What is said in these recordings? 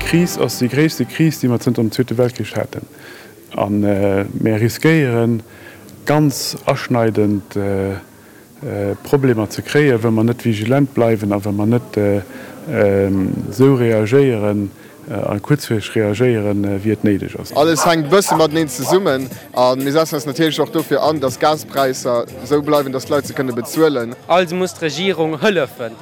Kris ass déi gréisste Kris, déi mer zënter dem Zweete Weltkrich haten. A mär riskéieren, ganz aschneidend Problemer ze kréien, wa mer net vigilant bleiwen a wa mer net esou reagéieren a kuerzfristeg reagéieren, wéi et néideg ass. Alles hänkt e bësse mateneen zesummen a mir setzen eis natierlech och dofir an, dass d'Gaspräisser esou bleiwen, dass d'Leit se kënne bezuelen. Also muss d'Regierung hëllefen.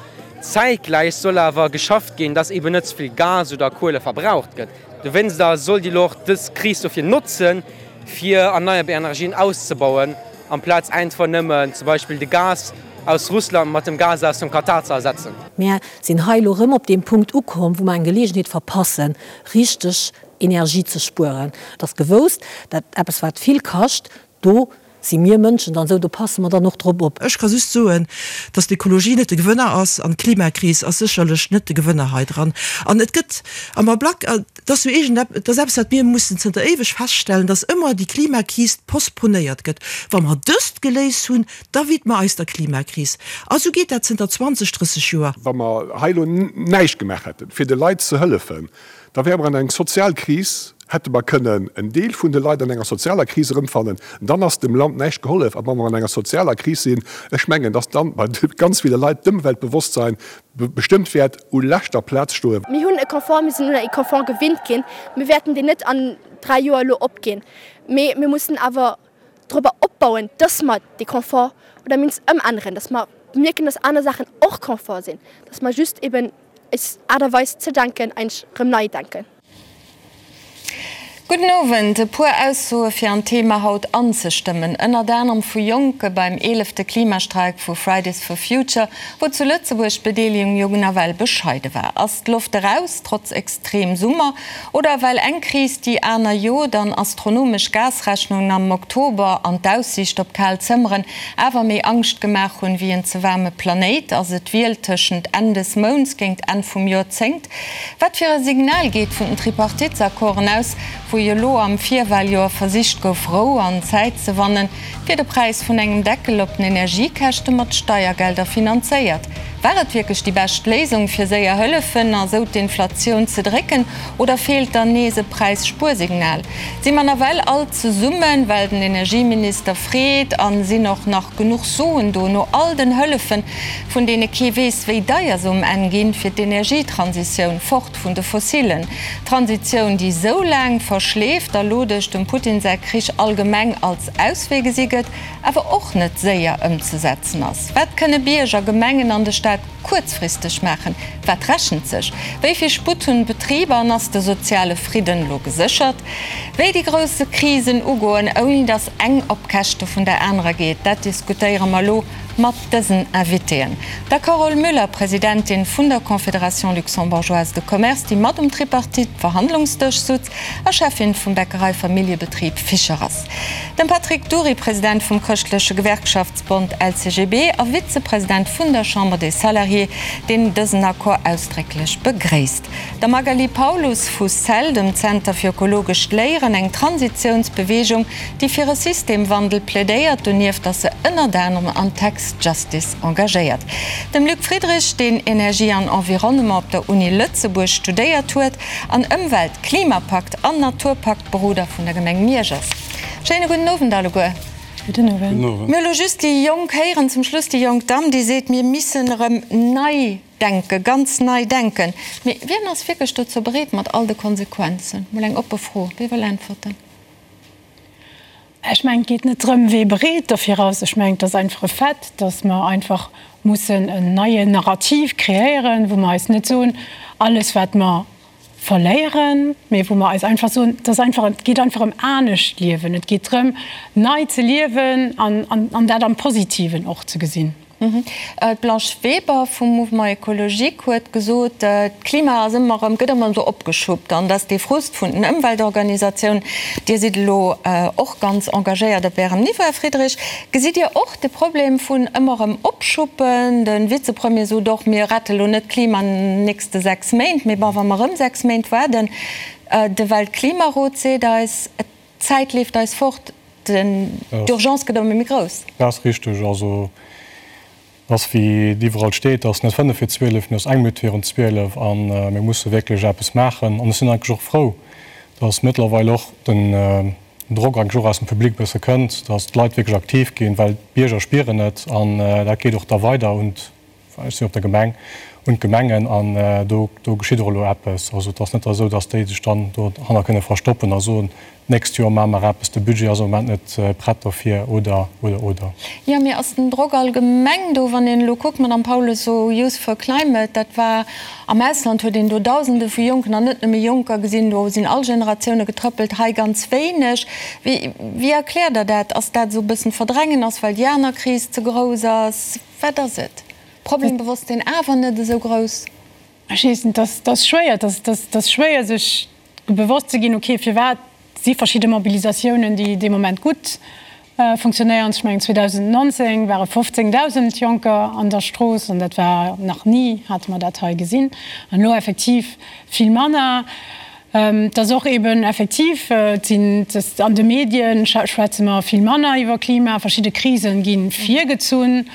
Zäitgläich soll awer geschafft ginn, dass eben net ze vill Gas oder Kuele verbraucht gëtt. Dowéinst soll déi elo och dës Kris dofir notzen, fir erneierbar Energien auszebauen, amplaz einfach nëmmen zum Beispill de Gas aus Russland mat dem Gas aus dem Katar ze ersetzen. Mär sinn hei elo erëm op deem Punkt ukomm, wou mer eng Geleegenheet verpassen, richteg Energie ze spueren. Et ass gewousst, dat eppes, wat vill kascht, do si mir Mënschen dann esou, do passe mer dann och drop op. Ech ka just soen, dass d'Ökologie net de Gewënner ass an d'Klimakris ass sécherlech net de Gewënner hei dran. An et gëtt am Ablack, et ass jo iergend, et ass eppes, wat mir mussen zënter éiweg feststellen, dass ëmmer déi Klimakris postponéiert gëtt. Wa mer dëst geléist hunn, da widme eis der Klimakris. A sou geet dat zënter 20, 30 Joer. Wa mer hei elo näischt gemaach hätten, fir de Leit ze hëllefen, Da wäre mer an eng sozial Kris, hätte mer kënnen en Deel vun de Leit an enger sozialer Kris erëmfannen. Dann ass dem Land näischt gehollef. A wa mer an enger sozialer Kris sinn, ech mengen, dass dann bei ganz ville Leit d'Ëmweltbewosstsein bestëmmt wäert u leschter Plaz stoen. Mir hunn e Confort, mir sinn un e Confort gewinnt ginn. Mir wäerten deen net an 3 Joer elo opginn, mee mir mussen awer dorobber opbauen, dass mer dee Confort oder mindestens ëmänneren, dass mer mierken, dass aner Saachen och Confort sinn, dass mer just eben Eis Aart a Weis ze denken eigentlech erëm nei denken. Gudden Owend. E puer Aussoe fir an d'Thema haut anzestëmmen, ënnert anerem vu Jonke beim eelefte Klimastreik vu Fridays for Future, wou zu Lëtzebuerg d'Bedeelegung jo nawell bescheide war. Ass d'Loft eraus, trotz extrem Summer? Oder well eng Kris déi aner jot an astronomesch Gasrechnungen am Oktober an d'Aussiicht op kal Zëmmeren awer méi Angscht gemaach hunn wéi en ze waarme Planéit? Ass et d'Wiel tëschent Enn des Mounts géingt Enn vum Joerzéngt? Wat fir e Signal geet vun den Tripartitesaccorden aus, wou jo elo am Virwaljoer versicht gouf Rou an Zäit ze wannen, fir de Präis vun engem Deckel op den Energiekäschte mat Steiergelder finanzéiert? War et wierklech déi bescht Léisung, fir séier hëllefen a sou d'Inflatioun ze drécken, oder feelt dann nees e Präisspuersignal? Si mer nawell all zesummen, well den Energieminister freet, a sinn och nach genuch Suen do, no all den Hëllefen, vun deene kee weess, wéi deier se um Enn ginn, fir d'Energietransitioun, fort vun de Fossilen? Transitioun, déi sou laang verschleeft a lo duerch dem Putin säi Krich allgemeng als Auswee gesi gëtt, awer och net séier ëmzesetzen ass. Wat kënne Bierger, Gemengen an de Staat kuerzfristeg maachen? Wat rechent sech? Wéi vill Sputt hunn d'Betriber an ass de soziale Fridden elo geséchert? Wéi déi grousse Krisen ugoen, ouni datt eng op Käschte vun der anerer geet, dat diskutéiere mer elo mat dësen Invitéen, der Carole Müller, Presidentin vun der Confédération luxembourgeoise de commerce, déi mat um Tripartite-Verhandlungsdësch sutz a Cheffin vum Bäckerei-Familljebetrib Fischer ass. Dem Patrick Dury, President vum Chrëschtleche Gewerkschaftsbond LCGB a Vizepresident vun der Chambre des Salariés, deen dësen Accord ausdrécklech begréisst. Der Magali Paulus vu cell, dem Zenter fir ökologescht Léieren, eng Transitiounsbeweegung, déi fir e Systemwandel plädéiert. Donieft ass se ënnert anerem an Tax Justice engagéiert. Dem Luc Friedrich, deen Energie an Environnement op der Uni Lëtzebuerg studéiert huet an Ëmwelt-, Klimapakt an Naturpaktberoder vun der Gemeng Miersch ass. Schéine gudden Owend alleguer. Gudden Owend. Mir hu lo just déi Jonk héieren, zum Schluss déi jonk Damm, déi seet, mir missen erëm nei denken, ganz nei denken. Mee wien ass wierklech dozou bereet, mat all de Konsequenzen? Mol eng oppe Fro. Wie wëll äntwerten? Ech mengen, et geet net drëm, wee bereet dofir ass. Ech mengen, et ass einfach e Fait, datt mer einfach mussen en neien Narrativ kreéieren, wou mer eis net soen, alles wat mer verléieren, mee wou mer eis einfach soen, et ass einfach, et geet einfach ëm anescht liewen. Et geet drëm, nei ze liewen an dat am Positiven och ze gesinn. D'Blanche Weber vum Mouvement Ecologique huet gesot, d'Klima ass ëmmer erëm, gëtt ëmmer esou opgeschuppt an dass dee Frust vun den Ëmweltorganisatiounen, Dir sidd elo och ganz engagéiert op Ärem Niveau, Här Friedrich, gesitt Dir och de Problem vun ëmmer erëm opschuppen? De Vizepremier sot och, mir rette lo net d'Klima an den nächste 6 Méint, mee bon, wa mer erëm 6 Méint waarden, de Weltklimarot seet eis, d'Zäit leeft eis fort. D'Urgence gëtt ëmmer méi grouss. Dat ass richteg. Also. Ass wéi et iwwerall steet, ass net 5 vir 12, mee ass eng Minutt virun 12 a mir musse wierklech eppes maachen. An ech sinn eigentlech och frou, datt mëttlerweil och den Drock eigentlech och aus dem Public e bësse kënnt, datt d'Leit wierklech aktiv ginn, well d'Bierger spieren et an dat geet och da weider un ech sinn op der Gemeng, un d'Gemengen an do do geschitt och elo eppes. Also et ass net esou, datt déi sech dann dohanner kënne verstoppen a soen, d'nächst Joer maache mer eppes, de Budget ass am Moment net prett dofir oder, oder, oder. Jo, mee ass den Drock allgemeng do, wann een elo kuckt, Madame Paulus, esou Youth for Climate, dat war am Ausland huet een do Dausende vu Jonken an net nëmme Jonker gesinn, do sinn all Generatioune getrëppelt, hei ganz wéineg. Wéi wéi erkläert Der dat? Ass dat esou e bëssen Verdrängen ass, well déi aner Kris ze grouss ass? Wat ass et? Problembewosstsinn awer net esou grouss? Ech weess net, dat ass schwéier, dat ass schwéier sech bewosst ze ginn, okay, firwat si verschidde Mobilisatiounen, déi dee Moment gutt funktionéieren. Ech mengen 2019 ware 15.000 Jonker an der Strooss an dat war nach ni, hate mer dat hei gesinn. An elo effektiv vill manner. Et ass och eben effektiv, et sinn, an de Medien schwätze mer vill manner iwwer Klima, verschidde Krisen gi virgezunn,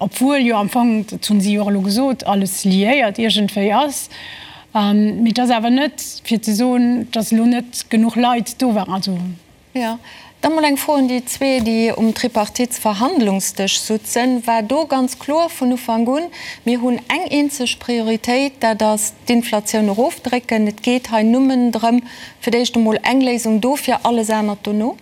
obwuel jo am Fong, dat hunn si jo och elo gesot, alles liéiert iergendwéi ass. Mee et ass awer net fir ze soen, datt elo net genuch Leit do waren. Also. Jo. Da mol eng Fro un déi zwee, déi um Tripartitsverhandlungsdësch sutzen. War do ganz kloer vun Ufank un, mir hunn eng eenzeg Prioritéit, dat ass d'Inflatioun erofdrécken, et geet hei nëmmen drëm, fir d'éischt emol eng Léisung dofir, alles anert dono?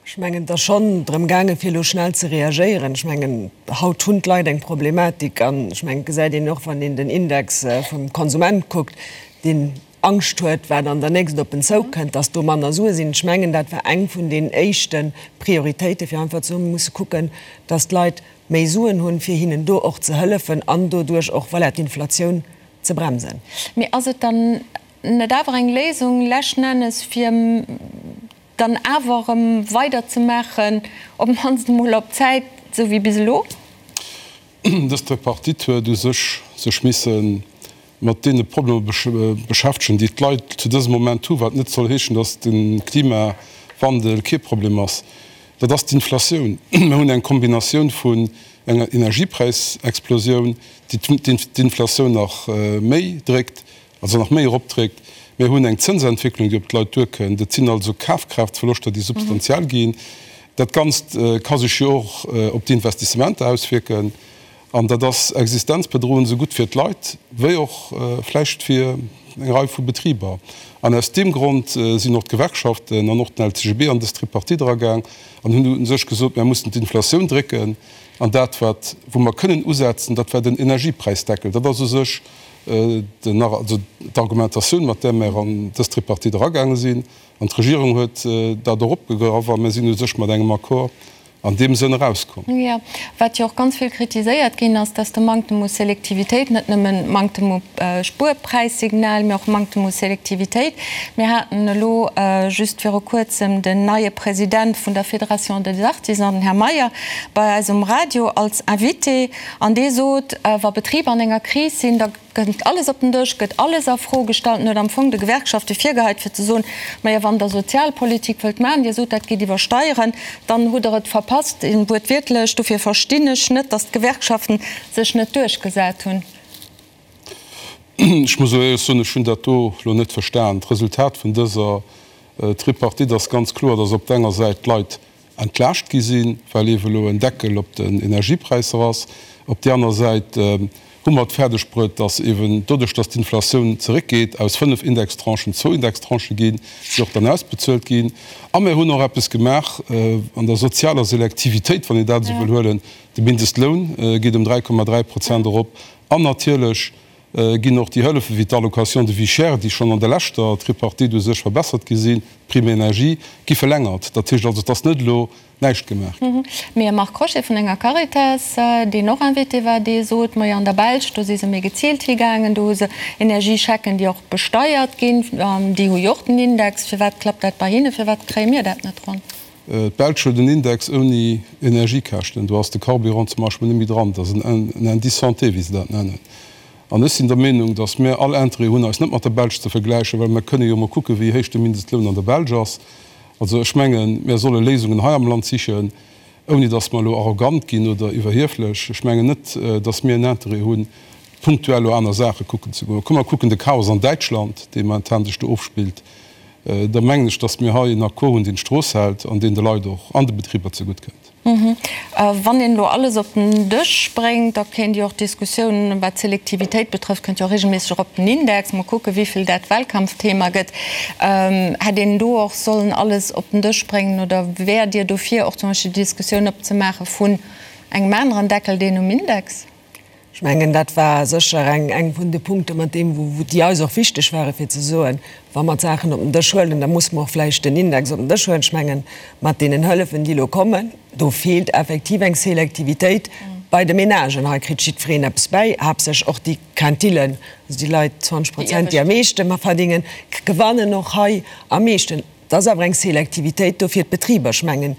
Ech mengen, et ass schonn drëm gaangen, fir elo schnell ze reagéieren. Ech mengen, haut hunn d'Leit eng Problematik an ech mengen, et gesäit een och, wann een den Index vum Konsument kuckt, deen Angscht huet, wat an der nächst op en zoukënnt, dass do manner Sue sinn. Ech mengen, dat war eng vun den éischte Prioritéiten, fir einfach ze soen, mir musse kucken, dass d'Leit méi Suen hunn, fir hinnen do och ze hëllefen an doduerch och, voilà, d'Inflatioun ze bremsen. Mee ass et dann net awer eng Léisung leschten Ennes, fir dann awer erëm weiderzemaachen, op d'mannst emol op Zäit, esou wéi bis elo? Dës Tripartite huet u sech sech misse mat deene Problemer beschäftegen, déi d'Leit zu dësem Moment hu, wat net soll heeschen, datt de Klimawandel kee Problem ass. Dat ass d'Inflatioun. Mir hunn eng Kombinatioun vun enger Energiepräisexplosioun, déi d'Inflatioun nach méi dréckt, also nach méi eropdréckt. Mir hunn eng Zënsentwécklung, déi op d'Leit duerkënnt. Et sinn also Kafkraaftverloschter, déi substantiell ginn. Dat Ganzt ka sech jo och op d'Investissementer auswierken. An dat ass existenzbedroend, esou gutt fir d'Leit wéi och vläicht fir eng Rei vu Betriber. An aus deem Grond sinn och d'Gewerkschaften an och den LCGB an dës Tripartite eragaang an hunn u sech gesot, Mir mussen d'Inflatioun drécken. An dat, wat, wou mer kënnen usetzen, dat war den Energiepräisdeckel. Dat ass u sech den, also d'Argumentatioun, mat där mer an dës Tripartite eragaange sinn. An d'Regierung huet dat och opgegraff a mir sinn u sech mat engem Accord an deem Sënn erauskomm. Jo, wat jo och ganz vill kritiséiert ginn ass, dass de Manktem u Selektivitéit, net nëmmen Manktem u Spuerpräissignal, mee och Manktem u Selektivitéit. Mir haten elo just viru Kuerzem den neie President vun der Fédération des Artisans, den Här Meyer, bei eis um Radio als Invité an dee sot, wa Betriber an enger Kris sinn, da Kënnt alles op den Dësch, gëtt alles a Fro gestallt. En huet am Fong de Gewerkschafte virgeheit, fir ze soen, Majo, wann Der Sozialpolitik wëllt maachen, Dir sot, dat geet iwwer Steieren, dann hutt Der et verpasst, wuertwiertlech. Dofir verstinn ech net, datt d'Gewerkschaften sech net duerchgesat hunn. Ech muss elo éierlech soen, ech hunn dat do elo net verstan. D'Resultat vun dëser Tripartite ass ganz kloer, datt op der enger Säit d'Leit entlaascht gi sinn, well ewe elo en Deckel op den Energiepräisser ass. Op déi aner Säit hu mer et fäerdeg bruet, dass ewen doduerch, dass d'Inflatioun zeréckgeet, aus 5 Indextranchen zwou Indextranchë ginn, déi och dann ausbezuelt ginn. A mir hunn och eppes gemaach an der sozialer Selektivitéit, wann een dat esou wëll huelen, De Mindestloun geet ëm 3,3 Prozent erop an natierlech ginn och déi Hëllefe wéi d'Allocation de vie chère, déi schonn an der leschter Tripartite u sech verbessert gi sinn, d'Prime énergie, gi verlängert. Dat heescht also, et ass net elo näischt gemaach ginn. Mee e Marc Crochet vun enger Caritas, deen och Invité war, dee sot, Majo an der Belsch, do si se méi geziilt higaangen, do hu se Energieschecken, déi och besteiert ginn, déi hu jo och den Index. Firwat klappt dat bei hinne, firwat kréie mir dat net ronn? D'Belsch huet en Index ouni Energiekäschten. Do ass de Carburant zum Beispill net méi dran. Dat ass en Indice santé, wéi se dat nennen. An ech sinn der Meenung, datt mir all Interêt hunn, eis net mat der Belsch ze vergläichen, well mir kënne jo emol kucken, wéi héich de Mindestloun an der Belsch ass. Also ech mengen, mir solle Léisungen hei am Land sichen. Ouni datt mer elo arrogant ginn oder iwwerhieflech, ech mengen net, datt mir en Interêt hunn, punktuell elo aner Saache kucken ze goen. Komm mer kucken de Chaos an Däitschland, dee momentan sech do ofspillt. Da mengen ech, datt mir hei en Accord hunn, deen d'Strooss hält an deen de Leit och an de Betriber zegutt kënnt. Wann een elo alles op den Dësch bréngt, da kéint jo och d'Diskussioun, wat d'Selektivitéit betrëfft, kënnt jo och regelméisseg och op den Index. Mol kucken, wéi vill dat Wahlkampfthema gëtt. Hätt een do och sollen alles op den Dësch bréngen oder wäert Dir dofir och zum Beispill déi Diskussioun opzemaache vun engem aneren Deckel, deen um Index? Ech mengen, dat war sécher eng, eng vun de Punkte mat deem, wou, déi eis och wichteg ware fir ze soen, wa mer d'Saachen op den Dësch huelen, da musse mer och vläicht den Index op den Dësch huelen. Ech mengen, mat deenen Hëllefen, déi elo kommen, do feelt effektiv eng Selektivitéit bei de Menagen. Hei kritt jiddwereen eppes bäi, haaptsächlech och déi Quintillen, also déi Leit, 20 Prozent, déi am meeschte verdingen, gewannen och hei am meeschten. Et ass awer eng Selektivitéit do fir d'Betriber. Ech mengen,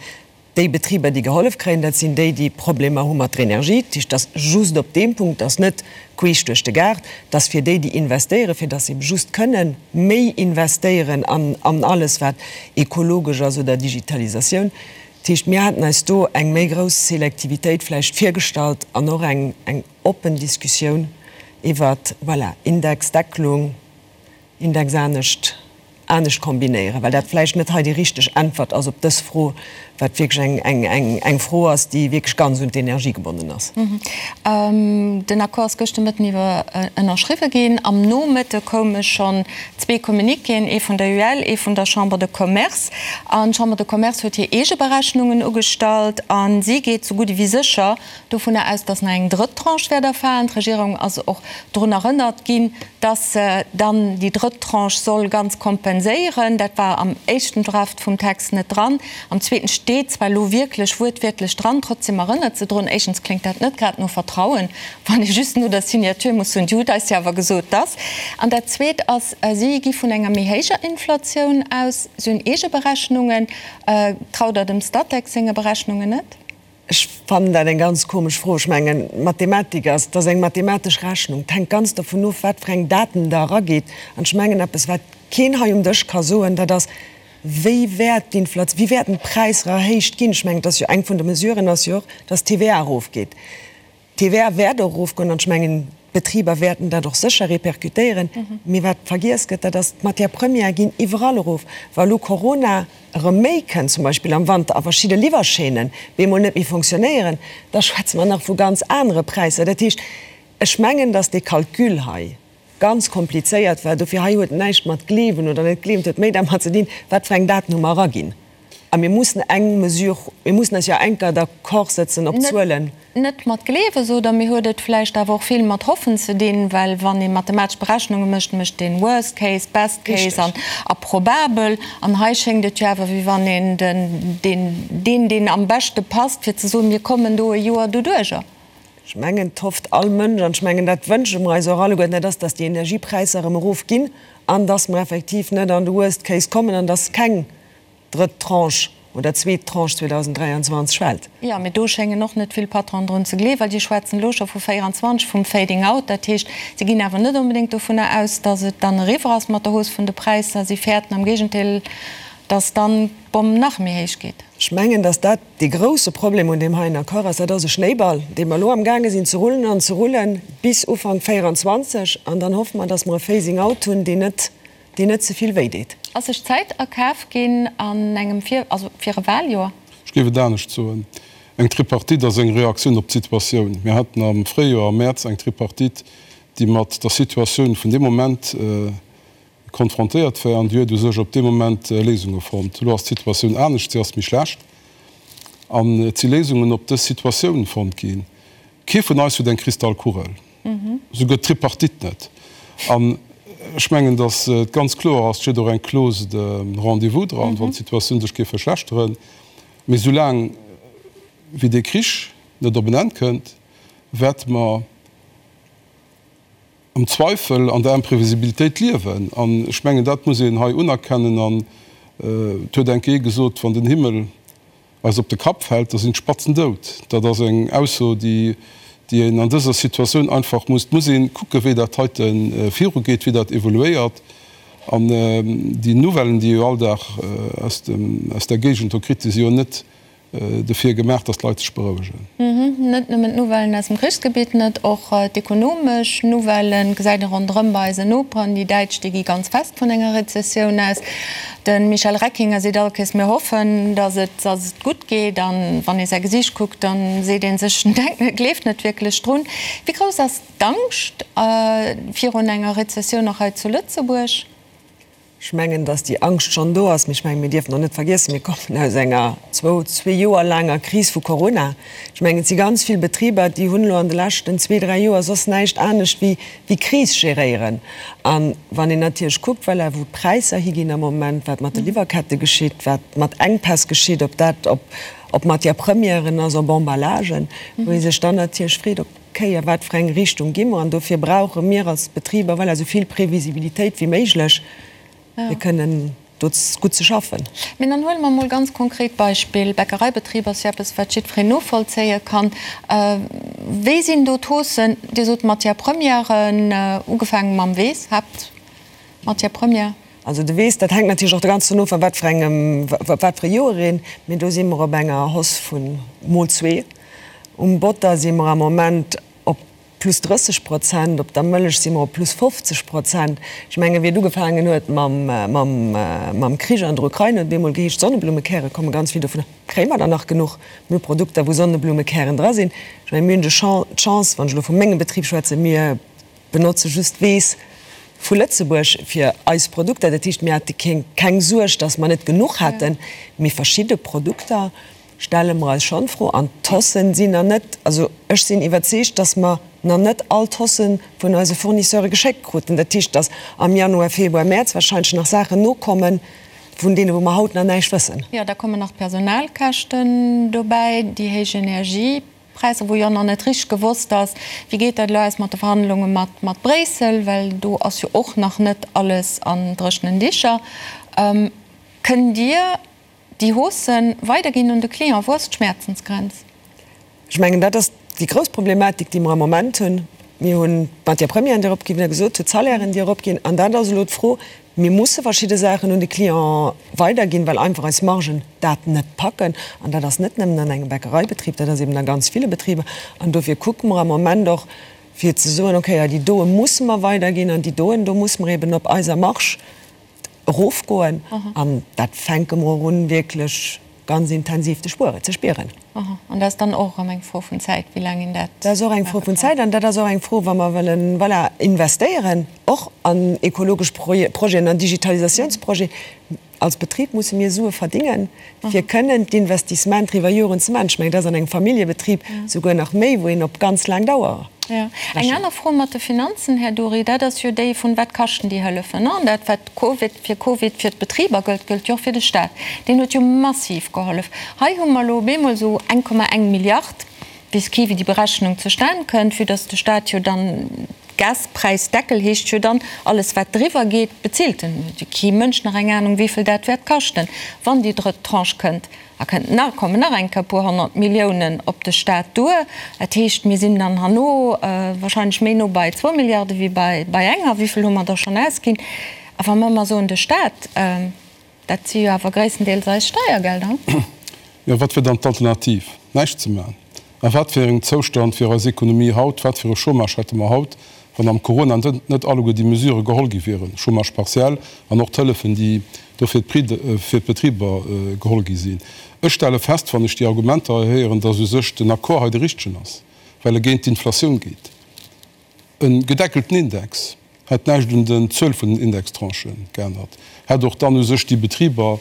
Déi Betriber, déi gehollef kréien, dat sinn déi, déi Problemer hu mat der Energie. Dat heescht, dass just op deem Punkt, dass net queesch duerch de Gaart, dass fir déi, déi investéieren, fir dass se ebe just kënnen méi investéieren an an alles, wat ekologesch ass oder Digitalisatioun. Dat heescht, mir haten eis do eng méi grouss Selektivitéit vläicht virgestallt an och eng eng oppen Diskussioun iwwert, voilà, Indexdeckelung, Index anescht anescht kombinéieren, well dat vläicht net hei déi richteg Äntwert ass op dës Fro, wat wierklech eng, eng, eng, eng Fro ass, déi wierklech ganz un d'Energie gebonnen ass. Den Accord ass gëschter Mëtten iwwer ënnerschriwwe ginn. Am Nomëtte koume schonn zwee Communiquéen, ee vun der UEL, ee vun der Chambre de Commerce. An d'Chambre de Commerce huet hir eege Berechnungen ugestallt a si geet sou gutt ewéi sécher dovunner aus, dass nach eng drëtt Tranche wäert erfalen. D'Regierung ass och drun erënnert ginn, dass se dann déi drëtt Tranche soll ganz kompenséieren. Dat war am éischten Draft vum Text net dran. Am zweeten steet zwar elo wierklech wuertwiertlech dran, trotzdem erënnert se drun. Éischtens kléngt dat net grad no Vertrauen, wann ee just no der Signature muss soen, Dir hutt eis jo awer gesot, dass. An dat Zweet ass, si gi vun enger méi héijer Inflatioun aus. Si hunn eege Berechnungen. Traut Der dem Statec senge Berechnungen net? Ech fannen dat eng ganz komesch Fro. Ech mengen, Mathematik ass, dat ass eng mathematesch Rechnung. Et hänkt ganz dovun of, wat fir eng Daten Der eragitt. An ech mengen, eppes, wat keen hei um Dësch ka soen, dat ass, Wéi wäert d'Inflation, wéi wäerten d'Präisser erhéicht ginn? Ech mengen, et ass jo eng vun de Mesuren ass jo och, dass d'TVA erofgeet. D'TVA wäert och erofgoen an ech mengen, d'Betriber wäerten dat och sécher répercutéieren. Mee wat vergiess gëtt, dat ass, d'Matières premières ginn iwwerall erof. Wa elo Corona erëm méi kënnt, zum Beispill am Wanter, a verschidde Liwwerchaînen bemol net méi fonctionnéieren, da schwätze mer nach vu ganz anere Präisser. Dat heescht, ech mengen, datt dee Calcul hei ganz komplizéiert war. Dofir hei huet näischt mat gleewen oder net gleewen, et huet méi dermat ze dinn, wat fir eng Daten hu mer eraginn. A mir mussen eng Mesure, mir mussen eis jo enker d'accord sëtzen op Zuelen. Net mat gleewe sot Der, mee huet et vläicht awer och vill mat hoffen ze dinn, well wann ee mathematesch Berechnunge mécht, mécht een Worst case, Best case an a probabel. An hei schéngt et jo awer, wéi wann een den, deen, deen, deen am beschte passt, fir ze soen, mir kommen do e Joer doduerjer. Ech mengen, et hofft all Mënsch, an ech mengen, dat wënsche mer eis och alleguerten, dat ass, dass déi Energiepräisser erëm erofginn an dass mer effektiv net an de Worst case kommen an dass keng drëtt Tranche oder zweet Tranche 2023 fält. Jo, mee do schéngen och net vill Patronen drun ze gleewen, well déi schwätzen elo scho vu 24, vum Fading out. Dat heescht, si ginn awer net onbedéngt dovunner aus, datt et dann eriwwer ass mat der Hausse vun de Präisser. Si fäerten am Géigendeel, datt dann d'Bomm nach méi héich geet. Ech mengen, datt dat dee grouse Problem un deem heien Accord ass. Dat ass e Schnéiball, dee mer elo amgaange sinn ze rullen an ze rullen bis Ufank 24. An dann hoffe mer, datt mer e Phasing out hunn, deen net deen net ze vill wéi deet. Ass sech Zäit erkaf ginn an engem fir, also fir e Wahljoer? Ech géif et anescht soen, Eng Tripartite ass eng Reaktioun op d'Situatioun. Mir haten am Fréijoer, am Mäerz, eng Tripartite, déi mat der Situatioun vun deem Moment konfrontéiert war an déi huet u sech op dee Moment Léisunge fonnt. Elo ass d'Situatioun anescht, si ass méi schlecht an et si Léisungen op dës Situatioun fonnt ginn. Kee vun eis huet eng Kristallkugel. Souguer d'Tripartite net. An ech mengen, datt et ganz kloer ass, et steet och eng Clause de rendez-vous dran, wann d'Situatioun sech géif verschlechteren. Mee soulaang wéi dee Krich net op en Enn kënnt, wäerte mer am Zweifel, an der Imprevisibilitéit liewen. An ech mengen, dat muss een hei unerkennen. An et huet eng Kéier ee gesot, wann den Himmel eis op de Kapp fält, da sinn d'Spatzen dout. Dat ass eng Ausso, déi een an dëser Situatioun einfach muss. Et muss ee kucken, wéi dat heite virugeet, wéi dat evoluéiert. An déi Nouvellen, déi ee jo all Dag aus der Géigend do kritt, déi si jo net. Dofir gemaach, dass d'Leit sech berouegen. Net nëmmen d'Nouvellen aus dem Krichsgebitt net, och d'ekonomesch Nouvellen gesäit ee ronderëm bei eisen Noperen. Déi Däitsch, déi gi ganz fest vun enger Rezessioun aus. De Michel Reckinger seet all Kéiers, Mir hoffen, dass et, dass et gutt geet. A wann ee säi Gesiicht kuckt, da seet ee sech, en denkt net, gleeft net wierklech drun. Wéi grouss ass d'Angscht virun enger Rezessioun och hei zu Lëtzebuerg? Ech mengen, datt déi Angscht schonn do ass, mee ech mengen, mir dierfen och net vergiessen, mir kommen aus enger zwou, zwee Joer laanger Kris vu Corona. Ech mengen, et si ganz vill Betriber, déi hunn elo an de leschten zwee, dräi Joer soss näischt anescht wéi wéi Kris geréieren. A wann een natierlech kuckt, voilà, wou d'Präisser higinn am Moment, wat mat de Liwwerkette geschitt, wat mat Enkpäss geschitt, ob dat op op Matière-premièren ass, op Emballagen, wou ee sech dann natierlech freet, ob. Kéier, wat fir eng Richtung gi mer? An dofir brauche mir als Betriber, voilà, esou vill Previsibilitéit wéi méiglech, fir kënnen do gutt ze schaffen. Mee dann huele mer emol ganz konkret Beispill, Bäckereibetrib ass jo eppes, wat jiddwereen novollzéie kann. Wéi sinn do d'Haussen? Dir sot Matières premièren, ugefaange mam Weess, Haaptmatière première. Also de Weess, dat hänkt natierlech och de ganzen of a wat fir engem, wat fir e Joer een, mee do si mer op enger Hausse vu mol zwee. Um Botter si mer am Moment op plus 30 Prozent, op der Mëllech si mer op plus 50 Prozent. Ech mengen, wéi et ugefaangen huet mam Krich an der Ukrain, huet et bemol geheescht, Sonneblummekäre komme ganz vill dovunner. Kréie mer der nach genuch? Mir hu Produkter, wou Sonneblummekären dra sinn. Ech mengen, mir hunn d'Chance, wann ech elo vu mengem Betrib schwätzen, mir benotze just Weess vu Lëtzebuerg fir eis Produkter. Dat heescht, mir hate keng Suerg, datt mer net genuch hätten. Mee verschidde Produkter stelle mer eis schonn d'Fro. An d'Haussen sinn nach net, also ech sinn iwwerzeegt, datt mer nach net all d'Hausse vun eise Fournisseure geschéckt kruten. Dat heescht, datt am Januar, Februar, Mäerz wahrscheinlech nach Saachen nokommen, vun deene wou mer haut nach näischt wëssen. Jo, da kommen nach d'Personalkäschten dobäi, déi héich Energie. Präisser, wou jo nach net richteg gewosst ass, wéi geet dat elo aus mat de Verhandlunge mat mat Bréissel, well do ass jo och nach net alles an dréchenen Dicher. Kënnt Dir déi Haussë weiderginn un de Client? Wou ass d'Schmäerzensgrenz? Ech mengen, dat ass déi grouss Problematik, déi mer am Moment hunn. Mir hunn d'Matières premièren, déi eropginn, wéi Der gesot hutt, d'Salairen, déi eropginn. An dat ass elo d'Fro, Mir musse verschidde Saachen un de Client weiderginn, well einfach eis Margen dat net packen. An dat ass net nëmmen an engem Bäckereibetrib, dat ass eben a ganz ville Betriber. An dofir kucke mer am Moment och, fir ze soen, okay, ja, déi doe musse mer weiderginn an déi doen, do musse mer eben op eiser Marge erofgoen. An dat fänke mer och un, wierklech ganz intensiv ze spueren, ze spieren. Aha, an dat ass dann och erëm eng Fro vun Zäit, wéi laang een dat Dat ass och eng Fro vun Zäit an dat ass och eng Fro, wa mer wëllen, voilà, investéieren, och an ekologesch Projeten, an Digitalisatiounsprojeten. Als Betrib musse mir Sue verdingen, fir kënnen d'Investissementer iwwer Joren ze maachen. Ech mengen, dat ass an engem Familljebetrib souguer nach méi, wou een op ganz laang Dauer Jo. Eng aner Fro mat de Finanzen, Här Dury, dat ass jo déi vun, Wat kaschten déi Hëllefen? An dat, wat Covid, fir Covid fir d'Betriber gëllt, gëllt jo och fir de Staat. Deen huet jo massiv gehollef. Hei hu mer elo op eemol esou 1,1 Milliard, weess kee wéi déi Berechnung zustan kënnt, vue dass de Staat jo dann, Gaspräisdeckel heescht jo dann, alles wat driwwer geet, bezilt en. Huet jo kee Mënsch nach eng Anung wéivill dat wäert kaschten, wann déi drëtt Tranche kënnt. Da kënnt nach, kommen nach eng Kéier e puer 100 Milliounen op de Staat duer. Dat heescht, mir sinn dann herno wahrscheinlech méi no bei zwou Milliarde wéi bei, bei enger. Wéi vill hu mer da schonn ausginn? A wa mer ëmmer soen, de Staat, dat si jo awer gréisstendeels eis Steiergelder. Jo, wat wier dann d'Alternativ? Näischt ze maachen? A wat fir engem Zoustand wier eis Ekonomie haut, wat fir e Chômage hätte mer haut, wann am Corona net alleguer déi Mesurë geholl gi wieren, Chômage partiel an och d'Hëllefen, déi do fir d'Betriber geholl gi sinn? Ech stelle fest, wann ech déi Argumenter hei héieren, datt u sech den Accord hei de richtegen ass, well e géint d'Inflatioun geet. E gedeckelten Index hätt näischt un den Zuel vun den Indextranchen geännert, hätt och dann u sech déi Betriber,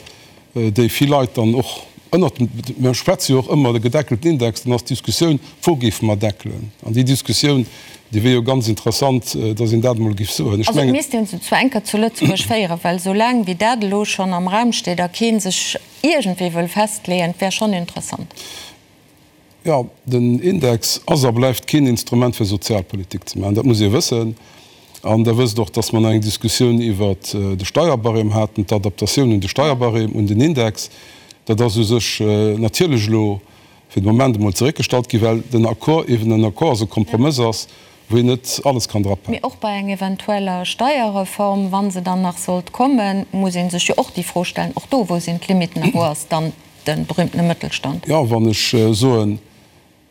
déi vill Leit dann och ënnert dem, mir schwätze jo och ëmmer de gedeckelten Index, dann ass d'Diskussioun, wou géife mer deckelen? An déi Diskussioun, déi wier jo ganz interessant, datt een dat emol géif soen. Ech Also et misst een se zwar eng Kéier zu Lëtzebuerg féieren, well esou laang wéi dat elo schonn am Raum steet a kee sech iergendwéi wëll festleeën, et wär schonn interessant. Jo, den Index ass a bleift keen Instrument fir Sozialpolitik ze maachen. Dat muss ee wëssen. An Der wësst och, dass mer nach eng Diskussioun iwwert de Steierbarème haten, d'Adaptatioun un de Steierbarème, un den Index. Dat ass u sech natierlech elo fir de Moment emol zeréckgestallt ginn, well den Accord eeben en Accord ass, e Kompromëss ass, wou een net alles kann drapaken. Mee och bei eng eventueller Steierreform, wa se dann nach sollt kommen, muss ee sech jo och déi Fro stellen, och do, wou sinn d'Limiten a wou ass dann. de berühmtene Mëttelstand. Jo, wann ech soen,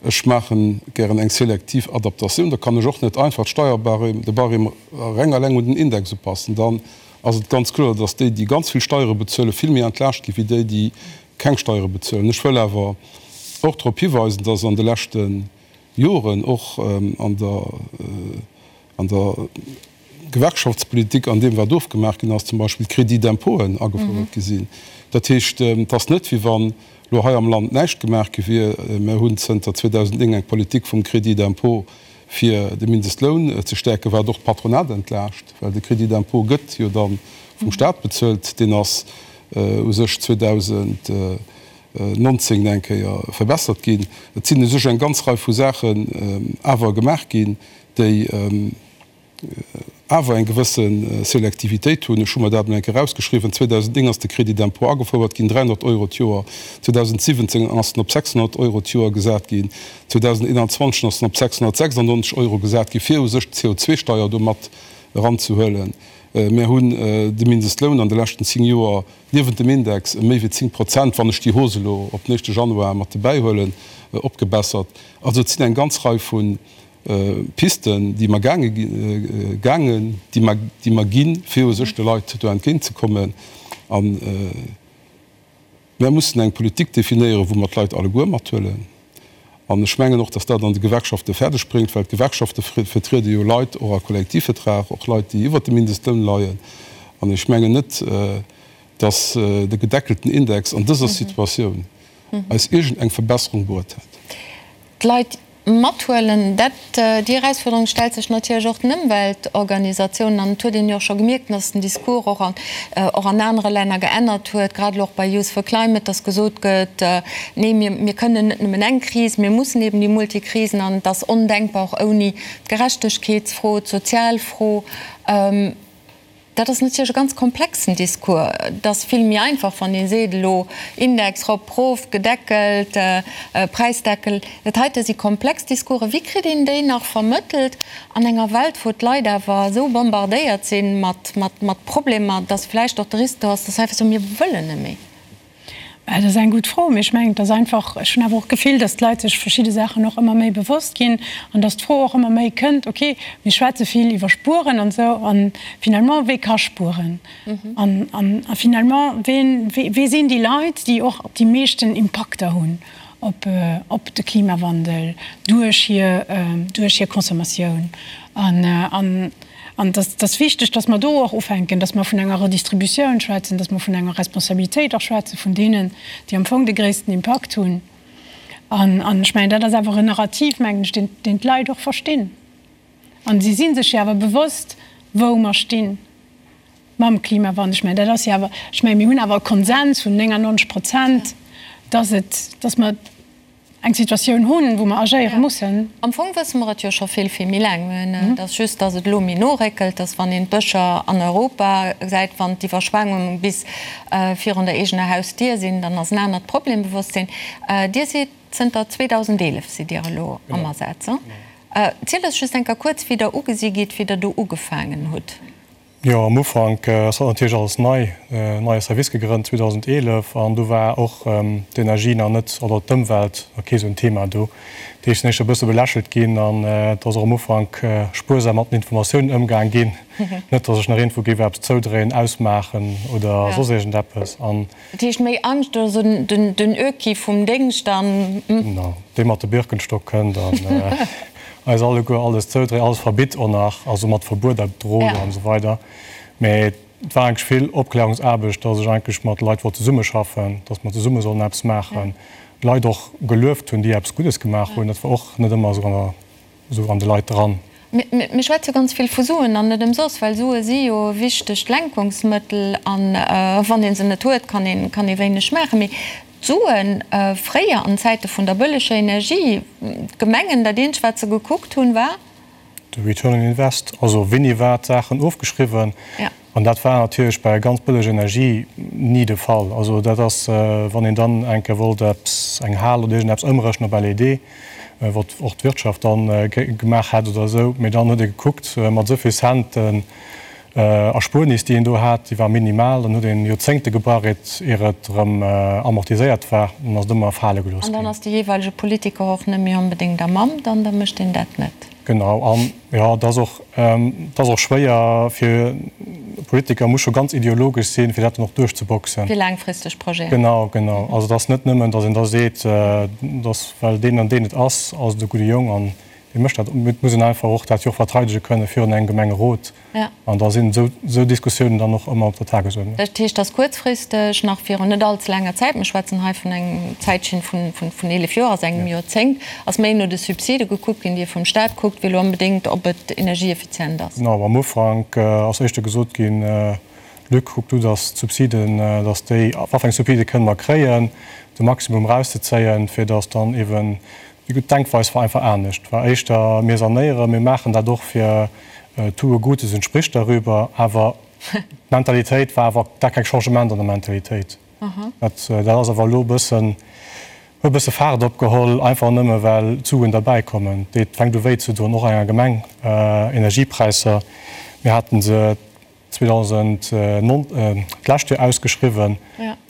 ech maache gären eng selektiv Adaptatioun, da kann ech och net einfach d'Steierbarème, de Barème reng eleng un den Index upassen. Dann ass et ganz kloer, dass déi, déi ganz vill Steiere bezuelen, vill méi entlaascht gi wéi déi, déi keng Steiere bezuelen. Ech wëll awer och drop hiweisen, dass an de leschte Joren och an der an der Gewerkschaftspolitik, an deem wat ofgemaach ginn ass, zum Beispill d'Crédits d'impôten agefouert gi sinn. Dat heescht, et ass net wéi wann elo hei am Land näischt gemaach gi wier. Mir hunn zënter 2009 eng Politik vum Crédit d'impôt fir de Mindestloun ze stäerken, wat och d'Patronat entlaascht, well de Crédit d'impôt gëtt jo da vum Stat bezuelt. Deen ass u sech 2019 eng Kéier verbessert ginn. Et sinn u sech eng ganz Rei vu Saachen awer gemaach ginn, déi awer eng gewësse Selektivitéit hunn. Ech hu mer dat emol eng Kéier erausgeschriwwen, 2009 ass de Crédit d'impôt agefouert ginn, 300 Euro d'Joer, 2017 ass en op 600 Euro d'Joer gesat ginn, 2021 ass en op 696 Euro gesat ginn, fir u sech d'CO2-Steier do mat eranzehuelen. Mir hunn de Mindestloun an de leschten 10 Joer niewent dem Index ëm méi wéi 10 Prozent, wann ech déi Hausse elo op den éischte Januar mat dobäihuelen, opgebessert. Also et sinn eng ganz Rei vu Pisten, déi mer gaange gaangen, déi mer, déi mer ginn, fir u sech de Leit do entgéintzekommen. A mer mussen eng Politik definéieren, wou mer d'Leit alleguer mathuelen. An ech mengen och, dass dat an de Gewerkschafte fäerdeg bréngt, well d'Gewerkschafte vertriede jo Leit och a Kollektivvertrag, och Leit, déi iwwert dem Mindestloun leien. An ech mengen net, dass de gedeckelten Index an dëser Situatioun eis iergendeng Verbesserung bruet hätt. D'Leit mathuelen, dat, déi Erausfuerderung stellt sech natierlech och den Ëmweltorganisatiounen. An et huet een jo och scho gemierkt, dass den Discours och an, och an anere Länner geännert huet, grad elo och bei Youth for Climate, dass gesot gëtt, Nee, mir, mir kënnen net nëmmen eng Kris, mir mussen eben déi Multikrisen an et ass ondenkbar och ouni d'Gerechtegkeetsfro, d'Sozialfro. Dat ass natierlech e ganz komplexen Discours. Et ass vill méi einfach, wann ee seet, elo Index rop, rof, gedeckelt, Präisdeckel. Dat heite si komplex Discoursen. Wéi kritt een déi nach vermëttelt an enger Welt, wou d'Leit awer esou bombardéiert si mat Problemer, dass vläicht och de Risk do ass, dass se einfach soen, mir wëllen net méi? Dat ass eng gutt Fro, mee ech mengen, et ass einfach, ech hunn awer och d'Gefill, datt d'Leit sech verschidde Saachen och ëmmer méi bewosst ginn an datt d'Fro och ëmmer méi kënnt, okay, mir schwätze vill iwwer Spueren an esou, a finalement, wee ka spueren? An, an, a finalement, ween, wee sinn déi Leit, déi och déi meeschten Impakter hunn op, op de Klimawandel duerch hir, duerch hir Consommatioun? An, an. An et ass wichteg, dass mer do och ufänken, dass mer vun enger Redistributioun schwätzen, dass mer vun enger Responsabilitéit och schwätze vun deenen, déi am Fong de gréissten Impakt hunn. An ech mengen, dat ass awer en Narrativ, mengen ech, deen, deen d'Leit och verstinn. A si si sech jo awer bewosst, wou mer sti mam Klimawandel. Ech mengen, dat ass jo awer, ech mengen, mir hunn awer e Konsens vun 99 Prozent, dass et, dass mer, eng Situatioun hunn, wou mer agéiere mussen. Am Fong wësse mer et jo scho vill, vill méi laang. Et ass just, datt et elo méi no réckelt, datt wann een d'Bëscher an Europa gesäit, wann d'Iwwerschwemmungen bis virun der eegener Hausdier sinn, dann ass en anert Problembewosstsinn. Dir sidd zënter 2011 sidd Dir elo am Asaz. Zielt eis just eng Kéier kuerz, wéi Der ugesi gitt, wéi Der do ugefaangen hutt. Jo, am Ufank ass dat natierlech alles nei, neie Service gegrënnt 2011 an do war och d'Energie nach net, oder d'Ëmwelt nach kee sou en Thema do. Dat heescht, sinn éischter e bësse belächelt ginn an et ass och am Ufank spuersam mat den Informatiounen ëmgaang ginn, net datt ech nach iergendwou géif eppes zoudréien, ausmaachen oder soss iergendeppes an. Dat heescht méi Angscht oder sou den Öki vum Déngscht an. Genau, dee mat de Birkenstock kënnt an eis alleguer alles zoudréit, alles verbitt och nach, also mat Verbueter droht an esou weider. Mee et war eigentlech vill Opklärungsaarbecht, dass ech eigentlech mat Leit wollt zesummeschaffen, dass mer zesumme sollen eppes maachen, Leit och gelueft hunn, déi eppes Guddes gemaach hunn. Dat war och net ëmmer esou an der Esou an de Leit dran. Mir schwätze ganz vill vu Suen, an net ëmsoss, well Sue si jo e wichtegt Lenkungsmëttel, a wann ee se net huet, kann ee kann ee wéineg maachen. Mee d'Suen, fréier an Zäite vun der bëlleger Energie, d'Gemengen, dat eenzegt wat se gekuckt hunn, war. De Return on Invest, also wéini war d'Saachen ofgeschriwwen. An dat war natierlech bei ganz bëlleg Energie ni de Fall. Also dat ass, wann een dann eng Kéier wollt eppes, eng Hal oder iergendeppes ëmrechnen op LED, wat och d'Wirtschaft dann gemaach hätt oder esou, mee dann huet ee gekuckt, mat esou vill Centen. Erspuernis, déi een do hat, déi war minimal. Dann huet een Joerzéngte gebrauch, ier et erëm amortiséiert war. Dann ass et ëmmer fale gelooss ginn. An dann ass de jeeweilege Politiker och net méi onbedéngt am Amt an da mécht een dat net. Genau. An jo, et ass och, et ass och schwéier fir e Politiker, muss scho ganz ideologesch sinn, fir dat dann och duerchzeboxen. Fir laangfristeg Projeten. Genau, genau. Also et ass net nëmmen, datt een da seet, datt well deen an deen et ass, ass et e gudde Jong an dee mécht dat. Et muss een einfach och dat jo och verteidege kënne virun engem Gemengerot. An da sinn esou Diskussiounen dann och ëmmer op der Tagesuerdnung. Dat heescht, dass kuerzfristeg, nach virun net allze laanger Zäit, mir schwätzen hei vun engem Zäitchen vun 11 Joer, also engem Joerzéngt, ass méi no de Subside gekuckt ginn, déi ee vum Stat kuckt, wéi elo onbedéngt, ob et energieeffizient ass. Genau, am Ufank ass éischter gesot ginn, Luc, kuck du, dass d'Subsiden, dass déi, wat fir eng Subside kënnen mer kréien, de Maximum erauszezéien, fir dass dann eeben Déi gutt Denkweis war einfach anescht, war éischter, mir sanéieren, mir maachen dat och fir tue Gutes und sprich darüber, awer d'Mentalitéit war awer, da keng Changement an der Mentalitéit. Dat dat ass awer elo e bëssen, huet e bësse Faart opgeholl, einfach nëmme well d'Suen derbäi kommen. Et fänkt u wéi ze doen, och enger Gemeng, Energiepräisser, mir haten se 2009, d'lescht Joer ausgeschriwwen,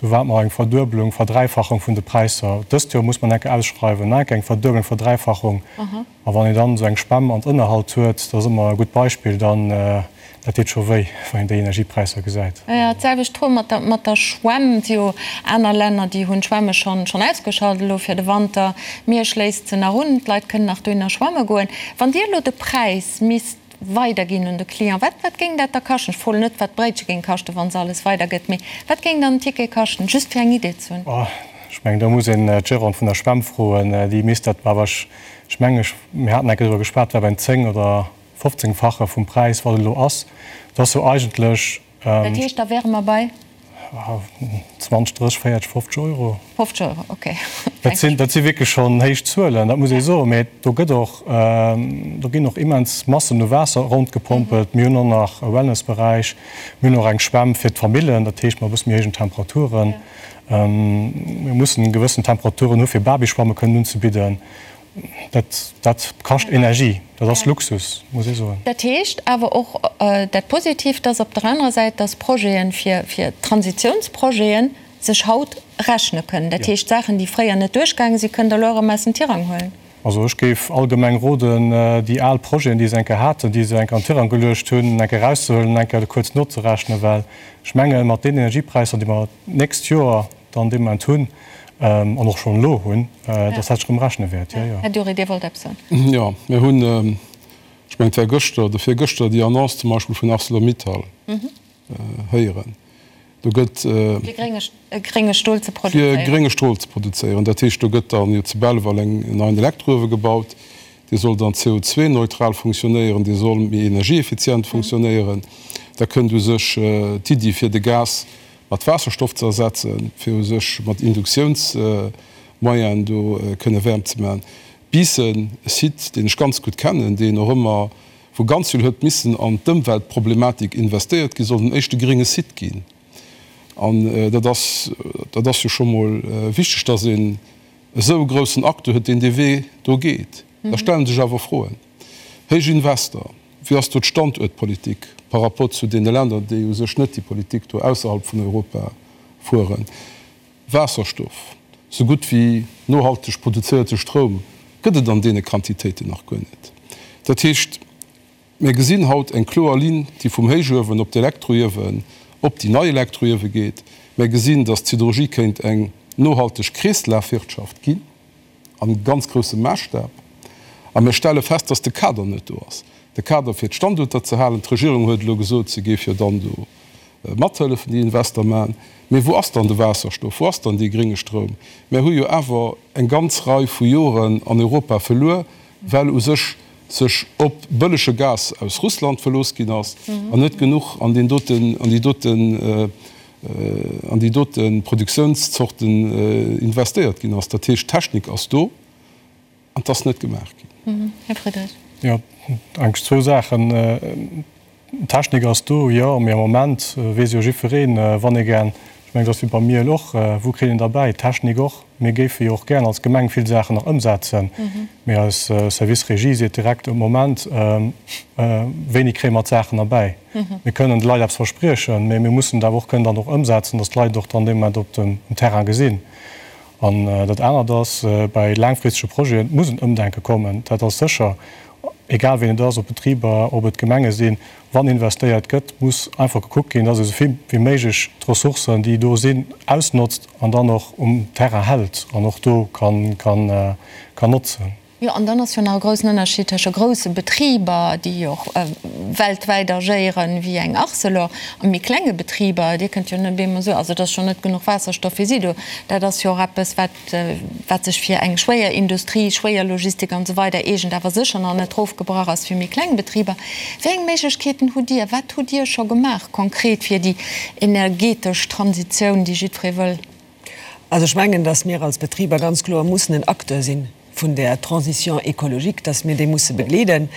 do ware mer eng Verduebelung, Verdräifachung vun de Präisser. Dëst Joer muss mer enke ausschreiwen, nach enke eng Verduebelung, Verdräifachung. A wann een dann esou eng Schwämm an Ënnerhalt huet, dat ass ëmmer e gutt Beispill, dann, dat deet scho wéi, wann een déi Energiepräisser gesäit. Jo, d'selwecht Fro mat der, mat der Schwämm. Et si jo aner Länner, déi hunn d'Schwämme schonn, schonn ausgeschalt elo fir de Wanter. Miersch léisst se nach un, d'Leit kënnen nach dohinner schwamme goen. Wann Dir elo de Präis misst weiderginn un de Client. Wat, wat géing dat da kaschten? Ech froen net, wat d'Bréitche géing kaschten, wa se alles weidergëtt, mee wat géing dann en Ticket kaschten, just fir eng Idee ze hunn? Oh, ech mengen, do muss een d'Gérante vun der Schwämm froen, déi misst dat, awer ech, ech mengen, ech, mir haten eng Kéier driwwer geschwat, war beim 10 oder 15-fache vum Präis, wat et elo ass. Dat ass jo eigentlech. Dat heescht, da wäre mer bei? 20, 30, 40, 50 Euro. 50 Euro, okay. Dat sinn, dat si wierklech schonn héich Zuelen, dat muss ee soen. Mä do gëtt och, do ginn och immens Massen u Waasser rondgepompelt. Mir hunn och nach e Wellnessberäich, mir hunn och eng Schwämm fir d'Famillen, dat heescht mat e bësse méi héijen Temperaturen. Mir mussen gewëssen Temperaturen hu fir Babyschwamme kënnen unzebidden. Dat, dat kascht Energie, dat ass Luxus, muss ee soen. Dat heescht awer och dat Positivt ass op der anerer Säit, dass Projeten, fir, fir Transitiounsprojeten sech haut rechne kënnen. Dat heescht, Saachen, déi fréier net duerchgaange sinn, kënnt Der elo erëm aus dem Tirang huelen. Also ech géif allgemeng roden, déi al Projeten, déi se eng Kéier haten, déi se eng Kéier an den Tirang geluecht hunn, eng Kéier erauszehuelen, eng Kéier kuerz nozerechnen, well ech mengen, mat deenen Energiepräisser, déi mer d'nächst Joer dann dee Moment hunn an och schonn elo hunn, dass dat sech erëm rechne wäert. Jo, jo. Här Dury, Dir wollt eppes soen. Jo, mir hunn, ech mengen, et war gëschter oder virgëschter, déi Annonce zum Beispill vun Arcelor-Mittal héieren. Do gëtt. Fir grénge Stol ze produzéieren. Fir grénge Stol ze produzéieren. Dat heescht, do gëtt dann jo zu Belval en neien Elektrouewe gebaut. Dee soll dann CO2-neutral funktionéieren, dee soll méi energieeffizient funktionéieren. Da kënnt u sech d'Iddi, fir de Gas mat Waasserstoff ze ersetzen, fir u sech mat Induktiounsmoyenen do kënne Wäermt ze maachen. Biissen, e Site, deen ech ganz gutt kennen, deen och ëmmer, wou ganz vill huet missen an d'Ëmweltproblematik investéiert ginn, soll den éischte grénge Site ginn. An dat ass, dat ass jo scho mol wichteg, dass een esou e groussen Acteur huet, deen dee Wee do geet. Da stelle sech awer Froen. Héich Investor, wéi ass do d'Standuertpolitik par rapport zu deene Länner, déi u sech net déi Politik do ausserhalb vun Europa fueren? Waasserstoff, sou gutt wéi nohalteg produzéierte Stroum gëtt et an deene Quantitéiten nach guer net. Dat heescht, mir gesinn haut eng kloer Linn, déi vum Héichuewen op d'Elektroiewen, op déi nei Elektroiewe geet. Mir gesinn, datt d'Siderurgie kéint eng nohalteg Kreeslafwirtschaft ginn. An ganz groussem Maasstap. A mir stelle fest, dass de Kader net do ass. De Kader fir d'Standuerter ze halen. D'Regierung huet elo gesot, se géif jo dann do mathëllefen, déi Invester maachen. Mee wou ass dann de Waasserstoff? Wou ass dann dee grénge Stroum? Mir hu jo awer eng ganz Rei vu Joren an Europa verluer, well u sech sech op bëllege Gas aus Russland verlooss ginn ass an net genuch an deen doten, an déi doten, an déi dote Produktiounszorten investéiert ginn ass. Dat heescht, d'Technik ass do an et ass net gemaach ginn. Här Friedrich. Jo, eigentlech zwou Saachen. D'Technik ass do, jo, mee am Moment weess jo jiddwereen, wann ee gär, ech. Ech mengen, et ass wéi beim Miel och, Wou kritt een derbäi? D'Technik och. Mir géife jo och gären als Gemeng vill Saachen nach ëmsetzen, mee eis Service Régie seet direkt um Moment, wéini kréie mer d'Saachen erbäi? Mir kënnen de Leit eppes verspriechen, mee mir mussen et awer och kënnen dann och ëmsetzen, datt d'Leit et och dann dee Moment op dem Terrain gesinn. An dat anert ass, bei laangfristege Projeten, et muss en Ëmdenke kommen, dat ass sécher, egal wien et ass, ob Betriber, ob et Gemenge sinn, Wann investéiert gëtt, muss einfach gekuckt ginn, dass ee sou vill wéi méiglech d'Ressourcen, déi do sinn, ausnotzt an dann och um Terrain hält an och do kann notzen. Jo, an dann ass jo nach e groussen Ënnerscheed tësche grousse Betriber, déi jo och weltwäit agéieren, wéi eng Arcelor, a méi klenge Betriber. Dir kënnt jo net op eemol soen, also et ass schonn net genuch Waasserstoff fir si do. Dat ass jo och eppes, wat wat sech fir eng schwéier Industrie, schwéier Logistik an esou weider eegent, awer sécher nach net erofgebrach ass fir méi kleng Betriber. Wéi eng Méiglechkeeten hutt Dir? Wat hutt Dir scho gemaach konkret fir déi energetesch Transitioun, déi jiddweree wëll? Also ech mengen, datt mir als Betriber ganz kloer mussen en Acteur si vun där Transition écologique, datt mir déi musse begleeden.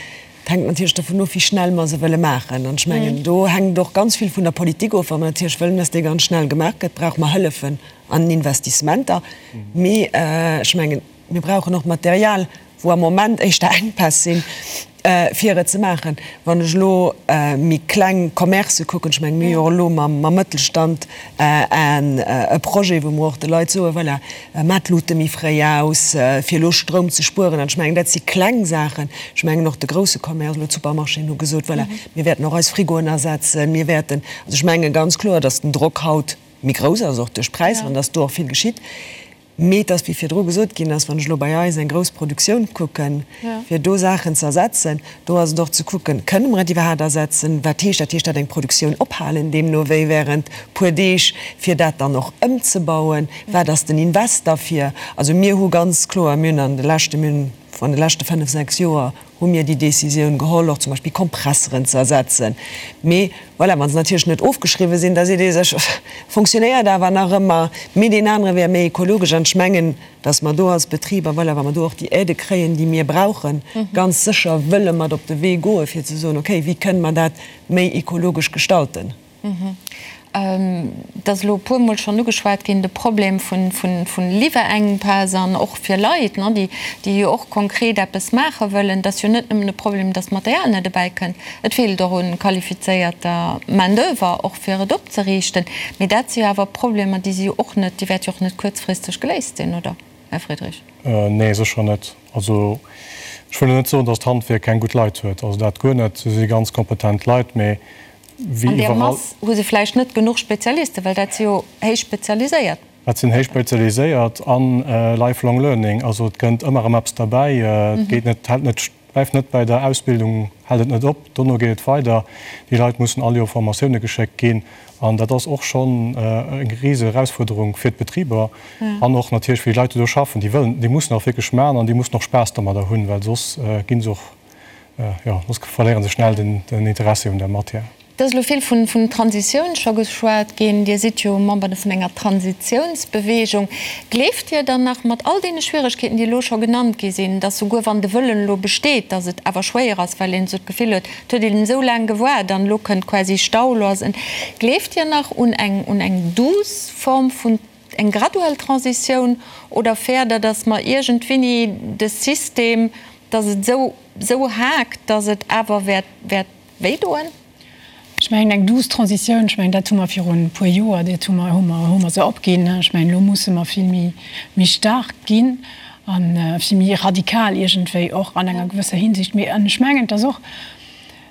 Et hänkt natierlech dovun of, wéi schnell mer se wëlle maachen. An ech mengen, do hänkt och ganz vill vun der Politik of. Wa mer natierlech wëllen, datt déi ganz schnell gemaach gëtt, brauche mer Hëllefen an Investissementer. Mee ech mengen, mir brauchen och Material, wou am Moment éischter Enkpäss sinn, fir et ze maachen. Wann ech elo méi kleng Commercë kucken, ech mengen, mir hu jo och elo mam Mëttelstand e Projet, wou mer och de Leit soen, voilà, maacht d'Lute méi fréi aus, fir elo Stroum ze spueren. An ech mengen, dat si kleng Saachen. Ech mengen och de grousse Commerce, elo d'Supermarchéen hu gesot, voilà, mir wäerten och eis Frigoen ersetzen, mir wäerten, also ech menge ganz kloer, datt den Drock haut méi grouss ass, och duerch d'Präisser, an datt do och vill geschitt. Mee et ass, wéi virdru gesot ginn ass, wann ech elo bei eis eng grouss Produktioun kucken, fir do Saachen ze ersetzen, do ass et och ze kucken, Kënne mer et iwwerhaapt ersetzen? Wat heescht dat? Heescht dat eng Produktioun ophalen, deemno wéi während puer Deeg, fir dat dann och ëmzebauen? Wat ass den Invest derfir? Also mir hu ganz kloer, mir hunn an de leschte, mir hunn an de leschte fënnf, sechs Joer hu mir déi Décisioun geholl, och zum Beispill Kompresseren ze ersetzen. Mee voilà, wa se natierlech net ofgeschriwwen sinn, da seet ee sech, fonctionnéiert awer nach ëmmer, mee deen anere wär méi ekologesch. An ech mengen, datt mer do als Betriber, voilà, wa mer do och déi Aidë kréien, déi mir brauchen, ganz sécher wëlle mat op de Wee goen, fir ze soen, okay, wéi kënne mer dat méi ekologesch gestalten? Et ass elo e puermol schonn ugeschwat ginn, de Problem vun Liwwerenkpäss an och fir Leit, déi jo och konkret eppes maache wëllen. Et ass jo net nëmmen e Problem, datt d'Material net ebäi kënnt, et feelt och u qualifizéierter Main d'oeuvre, och fir et opzeriichten. Mee dat si jo awer Problemer, déi si jo och net, déi wäerte jo och net kuerzfristeg geléist sinn, oder, Här Friedrich? Nee, sécher net. Also ech wëll jo net soen, datt d'Handwierk keng gutt Leit huet, also dat guer net. Se si ganz kompetent Leit, mee wéi An där iwwerall. Mass hu se vläicht net genuch Spezialisten, well dat si jo héich spezialiséiert. Dat sinn héich spezialiséiert an lifelong learning, also et kënnt ëmmer erëm eppes derbäi. Et geet net, hält net, bleift net bäi der Ausbildung, hält et net op, dono geet et weider. Déi Leit mussen all Joer Formatioune geschéckt ginn an dat ass och schonn eng rise Erausfuerderung fir d'Betriber an och natierlech fir déi Leit, déi do schaffen. Déi wëllen, déi mussen och wierklech maachen an déi mussen och Spaass domadder hunn, well soss gi se och Jo, soss verléieren se schnell den Interessi un der Matière. Et ass elo vill vun Transitioun scho geschwat ginn. Dir sidd jo Member vun enger Transitiounsbewegung. Gleeft Dir dann nach, mat all deene Schwieregkeeten, déi elo scho genannt gi sinn, dass souguer wann de Wëllen elo besteet, dass et awer schwéier ass, well een esou d'Gefill huet, et huet een esou laang gewaart an elo kënnt quasi Stau, elo ass en. Gleeft Dir nach un eng, un eng douce Form vun eng graduell Transitioun oder fäert Der, dass mer iergendwéini de System, dass et esou, esou haakt, dass et awer wäert, wäert wéidoen? Ech mengen, eng douce Transitioun, ech mengen, dat hu mer virun e puer Joer, dat hu mer, hu mer, hu mer se opginn. Ech mengen, elo musse mer vill méi, méi staark ginn a vill méi radikal iergendwéi och an enger gewësser Hinsicht. Mee an ech mengen, et ass och,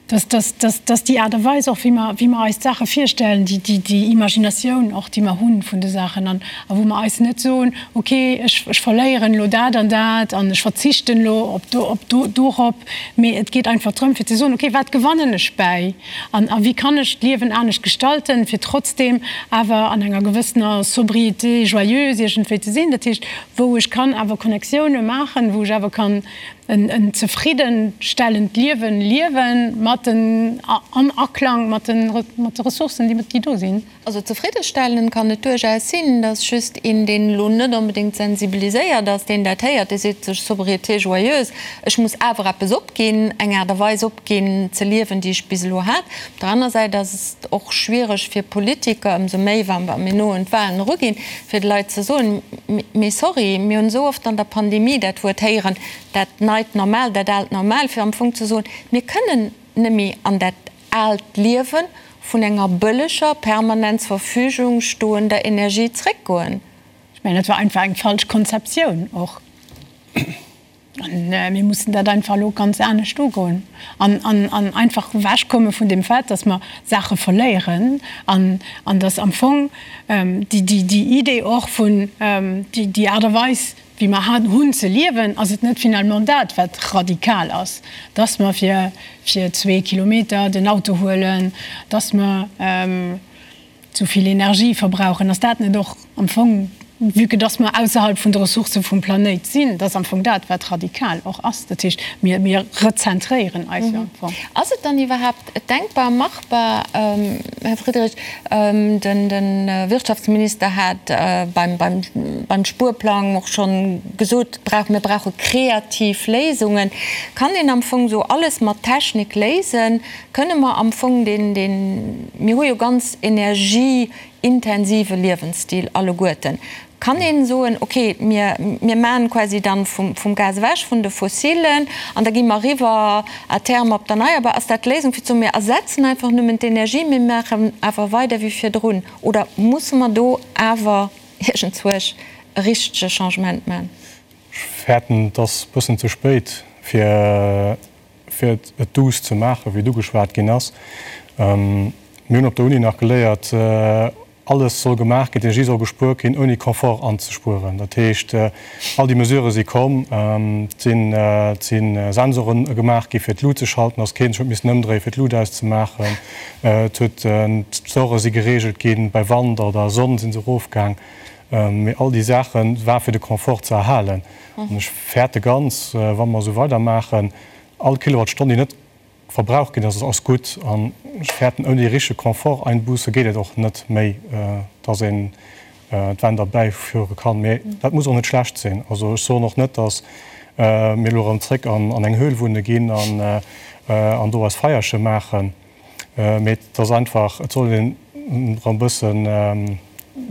dass, dass, dass, dass déi Aart a Weis och, wéi mer, wéi mer eis d'Saache virstellen, déi, déi, déi Imaginatioun och, déi mer hu vun de Saachen an a wou mer eis net soen, okay, ech, ech verléieren elo dat an dat an ech verzichten elo op do, op do, dorop, mee et geet einfach drëm fir ze soen, okay, wat gewannen ech bäi an a wéi kann ech d'Liewen anescht gestalten, fir trotzdeem awer an enger gewëssener Sobriété joyeuse iergendwéi ze sinn, dat heescht, wou ech kann awer Connectioune maachen, wou ech awer kann en zefriddenstellend Liewen liewen mat. mat den, am Aklang mat de, mat de Ressourcen, déi do sinn. Also zefriddestellend kann et duerchaus sinn, dass just een, deen elo net onbedéngt sensibiliséiert ass, deen dat héiert, dee seet sech, Sobriété joyeuse, ech muss awer eppes opginn, eng Aart a Weis opginn ze liewen, déi ech bis elo hat. Op der aner Säit ass et och schwiereg fir Politiker, ëmsou méi wa mir no un d'Wahlen eruginn, fir de Leit ze soen, Mee sorry, mir hunn esou oft an der Pandemie dat Wuert héieren, dat neit Normal, dat aalt Normal, fir am Fong ze soen, mir kënnen net méi an dat aalt Liewe vun enger bëlleger, permanent zur Verfügung stoender Energie zréckgoen. Ech mengen, dat war einfach eng falsch Konzeptioun och. An mir mussen dat einfach elo ganz anescht ugoen an, an, an einfach ewechkomme vun deem Fait, dass mer Saache verléieren an, an dass am Fong déi, déi, déi Idee och vun, déi, déi Aart a Weis, wéi mer hunn ze liewen, ass et net finalement dat, wat radikal ass, dass mer fir fir Kilometer den Auto huelen, dass mer zu vill Energie verbrauchen. Ass dat net och am Fong, vue que dass mer ausserhalb vun de Ressourcë vum Planéit sinn, dat ass am Fong dat, wat radikal och ass. Dat heescht, mir mir rezentréieren eis jo am Fong. Ass et dann iwwerhaapt denkbar, machbar, Här Friedrich, De Wirtschaftsminister hat beim Spuerplang och schonn gesot, mir brauche kreativ Léisungen. Kann een am Fong esou alles mat Technik léisen? Kënne mer am Fong deen, mir hu jo ganz energieintensive Liewensstil alleguerten, Kann een soen, ok, mir mir maan quasi dann vum vum Gas ewech, vun de Fossilen, an da gi mer eriwwer à terme op d'Erneierbar. Ass dat d'Léisung fir ze soen, mir ersetzen einfach nëmmen d'Energie, mir maachen awer weider wéi virdrun? Oder musse mer do awer iergendzwousch e richtege Changement maan? Ech fäerten, et ass e bëssen ze spéit fir fir et douce ze maachen, wéi et ugeschwat ginn ass. Mir hunn op der Uni nach geléiert, Alles soll gemaach ginn, d'Energie soll gespuert ginn, ouni Confort anzespueren. Dat heescht, all déi Mesurë si komm, et si Sensore gemaach gi fir d'Lut ze schalten, dass keen sech huet missen ëmdréien, fir d'Lut auszemaachen. Et huet, d'Store si gereegelt ginn, bei Wand oder Sonn si se erofgaang. Mee all déi Saache war fir de Confort ze erhalen. An ech fäerte ganz, wa mer esou weidermaachen, all Kilowattstonn, déi net Verbrauch ginn ass, ass gutt. An ech fäerten, ouni richtege Confort-Einbuße geet et och net méi, dass een d'Wänn derbäiführe kann. Mee dat muss och net schlecht sinn. Also ech soen och net, dass mir elo erëm zréck an eng Höhl wunne ginn an do eis Feierche maachen. Mee et ass einfach, et soll een erëm e bëssen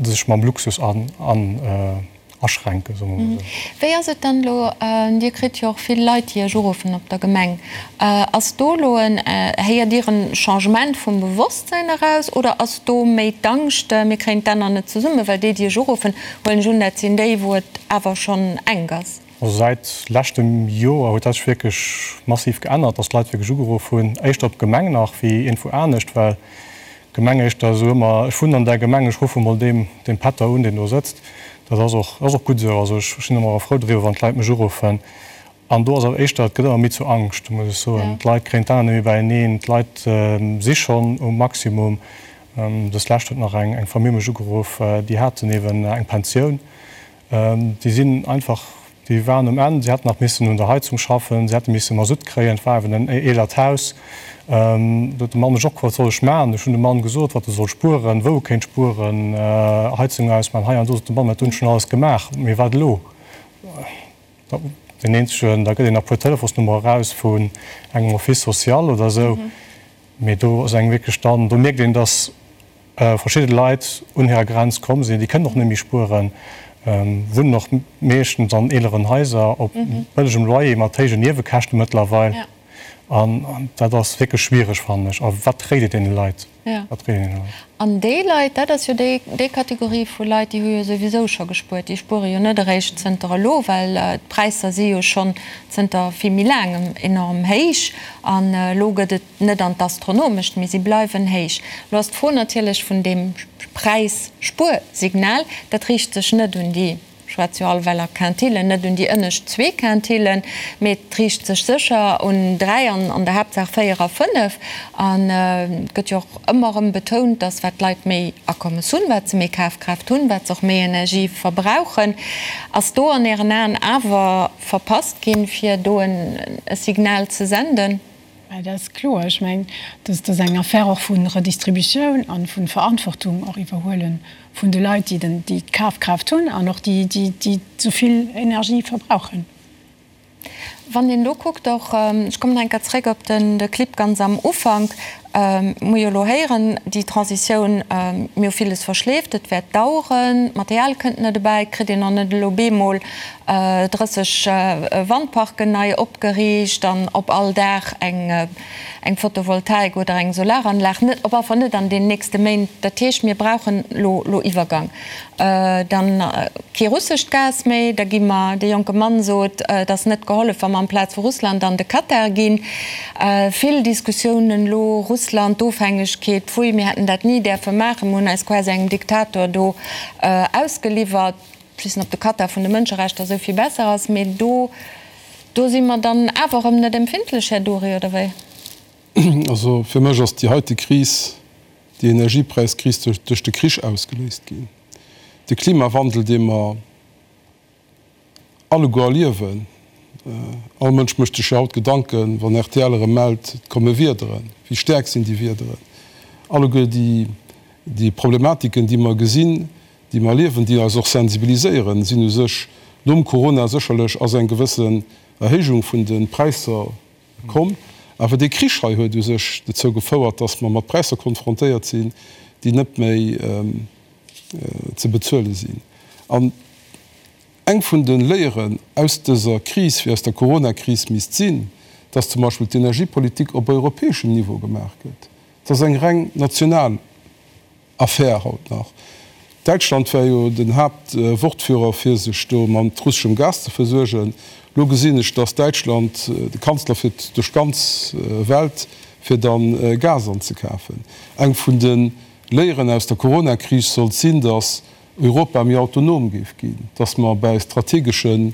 sech mam Luxus an. Aschränken, soe mer mol esou. Wéi ass et dann elo, Dir kritt jo och vill Leit, déi Iech uruffen op der Gemeng, ass do elo en, héiert Dir en Changement vum Bewosstsäin eraus oder ass do méi d'Angscht, mir kréien d'Enner net zesummen, well déi, déi Iech uruffen, huelen ech un, dat sinn déi, wou et awer schonn enk ass? Also säit leschtem Joer huet dat sech wierklech massiv geännert, dass d'Leit wierklech ugeruff hunn, éischter op d'Gemeng nach wéi iergendwou anescht, well Gemeng éischter esou ëmmer, ech wunnen an där Gemeng, ech ruffe mol deem, deem Pätter un, deen do sëtzt. Dat ass och, ass och gutt esou. Also ech sinn ëmmer frou driwwer, wann d'Leit mech uruffen. An do ass awer éischter, et gëtt ëmmer méi zur Angscht, muss ech soen. D'Leit kréien d'Aen net méi beieneen, d'Leit si schonn um Maximum. Dës Lescht huet nach eng, eng Famill mech ugeruff, déi haten eeben eng Pensioun. Déi sinn einfach, déi waren um Enn. Si hätten nach missen un der Heizung schaffen, si hätte misse Masutt kréien. Et war eben en eelert Haus. Do huet de Mann mech och gefrot, wat soll ech maachen? Ech hunn dem Mann gesot, wat e soll spueren, wou e kéint spueren, Heizung ausmaachen, hei an do. Sot de Mann, mä dat hunn ech schonn alles gemaach. Mee wat elo? Deen eenzegen, da gëtt een nach e puer Telefonsnummere eraus vun engem Office social oder esou. Mee do ass engem wierklech dann, do mierkt een, dass verschidde Leit un hirer Grenz komm sinn. Déi kënnen och net méi spueren, wunnen och meeschtens an eeleren Haiser op bëllegem Loyer mat héijen Niewekäschte mëttlerweil. An dat ass wierklech schwiereg, fannen ech. A wat réit ee deene Leit? Wat réit een deene Leit? An déi Leit, dat ass jo déi, déi Kategorie vu Leit, déi hu jo souwisou scho gespuert. Déi spuere jo net eréischt zënter elo, well d'Präisser si jo schonn zënter vill méi laangem enorm héich. An elo gëtt et net an d'Astronomescht, mee si bleiwen héich. Elo ass d'Fro natierlech vun deem Präisspuersignal, dat riicht sech net un déi, ech schwätze jo all well a Quintillen, net un déi ënnescht zwee Quintillen, mee et riicht sech sécher un dräi an an der Haaptsaach véier a fënnef. An et gëtt jo och ëmmer erëm betount, datt wat d'Leit méi Akommes hunn, wat se méi Kafkraaft hunn, wat se och méi Energie verbrauchen. Ass do an Ären Aen awer verpasst ginn, fir do e Signal ze senden? Dat ass kloer. Ech mengen, dat ass eng Affaire och vu Redistributioun a vu Verantwortung och iwwerhuele vun de Leit, déi d'Kafkraaft hunn an och déi, déi esou vill Energie verbrauchen. Wann een elo kuckt och, ech kommen nach eng Kéier zréck op de Clip ganz am Ufank, mir hu jo elo héieren, déi Transitioun, mir hu villes verschleeft, et wäert daueren, d'Material kënnt net ebäi, et kritt een och net elo bemol 30 Wandparken nei opgeriicht an op all Daach eng Photovoltaik oder eng Solaranlag, net, op alle Fall net an den nächste Méint. Dat heescht, mir brauchen elo Iwwergang. Dann kee russescht Gas méi, da gi mer, de jonke Mann sot, et ass net gehollef, wa mer amplaz vu Russland an de Katar ginn. Vill Diskussiounen elo, Russland, d'Ofhängegkeet, pfui, mir hätten dat ni däerfe maachen, mir hunn eis quasi engem Diktator do ausgeliwwert. Ech weess net, ob de Katar vun de Mënscherechter esou vill besser ass, mee do, do si mer dann awer erëm net empfindlech, Här Dury, oder wéi? Also fir mech ass déi heite Kris, déi Energiepräiskris duerch de Krich ausgeléist ginn. De Klimawandel, dee mer alleguer erliewen, all Mënsch mécht sech jo haut Gedanken, wann rtl erëm mellt, et komme Wiederen, wéi staark sinn déi Wiederen? Alleguer déi Problematiken, déi mer gesinn, déi mer erliewen, déi eis och sensibiliséieren, sinn u sech nom Corona sécherlech ass eng gewëssen Erhéijung vun de Präisser komm. Awer dee Krich hei huet u sech dozou gefouert, datt mer mat Präisser konfrontéiert sinn, déi net méi ze bezuele sinn. An eng vun de Léieren aus dëser Kris, wéi aus der Coronakris, misst sinn, datt zum Beispill d'Energiepolitik op europäeschem Niveau gemaach gëtt. Et ass eng reng national Affär haut nach. Däitschland war jo den Haaptwortführer fir sech do mat russeschem Gas ze versuergen. Lo gesinn ech, dass Däitschland, de Kanzler fiert duerch d'ganz Welt fir dann Gas anzekafen. Eng vun de Léieren aus der Coronakris sollt sinn, dass Europa méi autonom géif ginn, dass mer bäi strategesche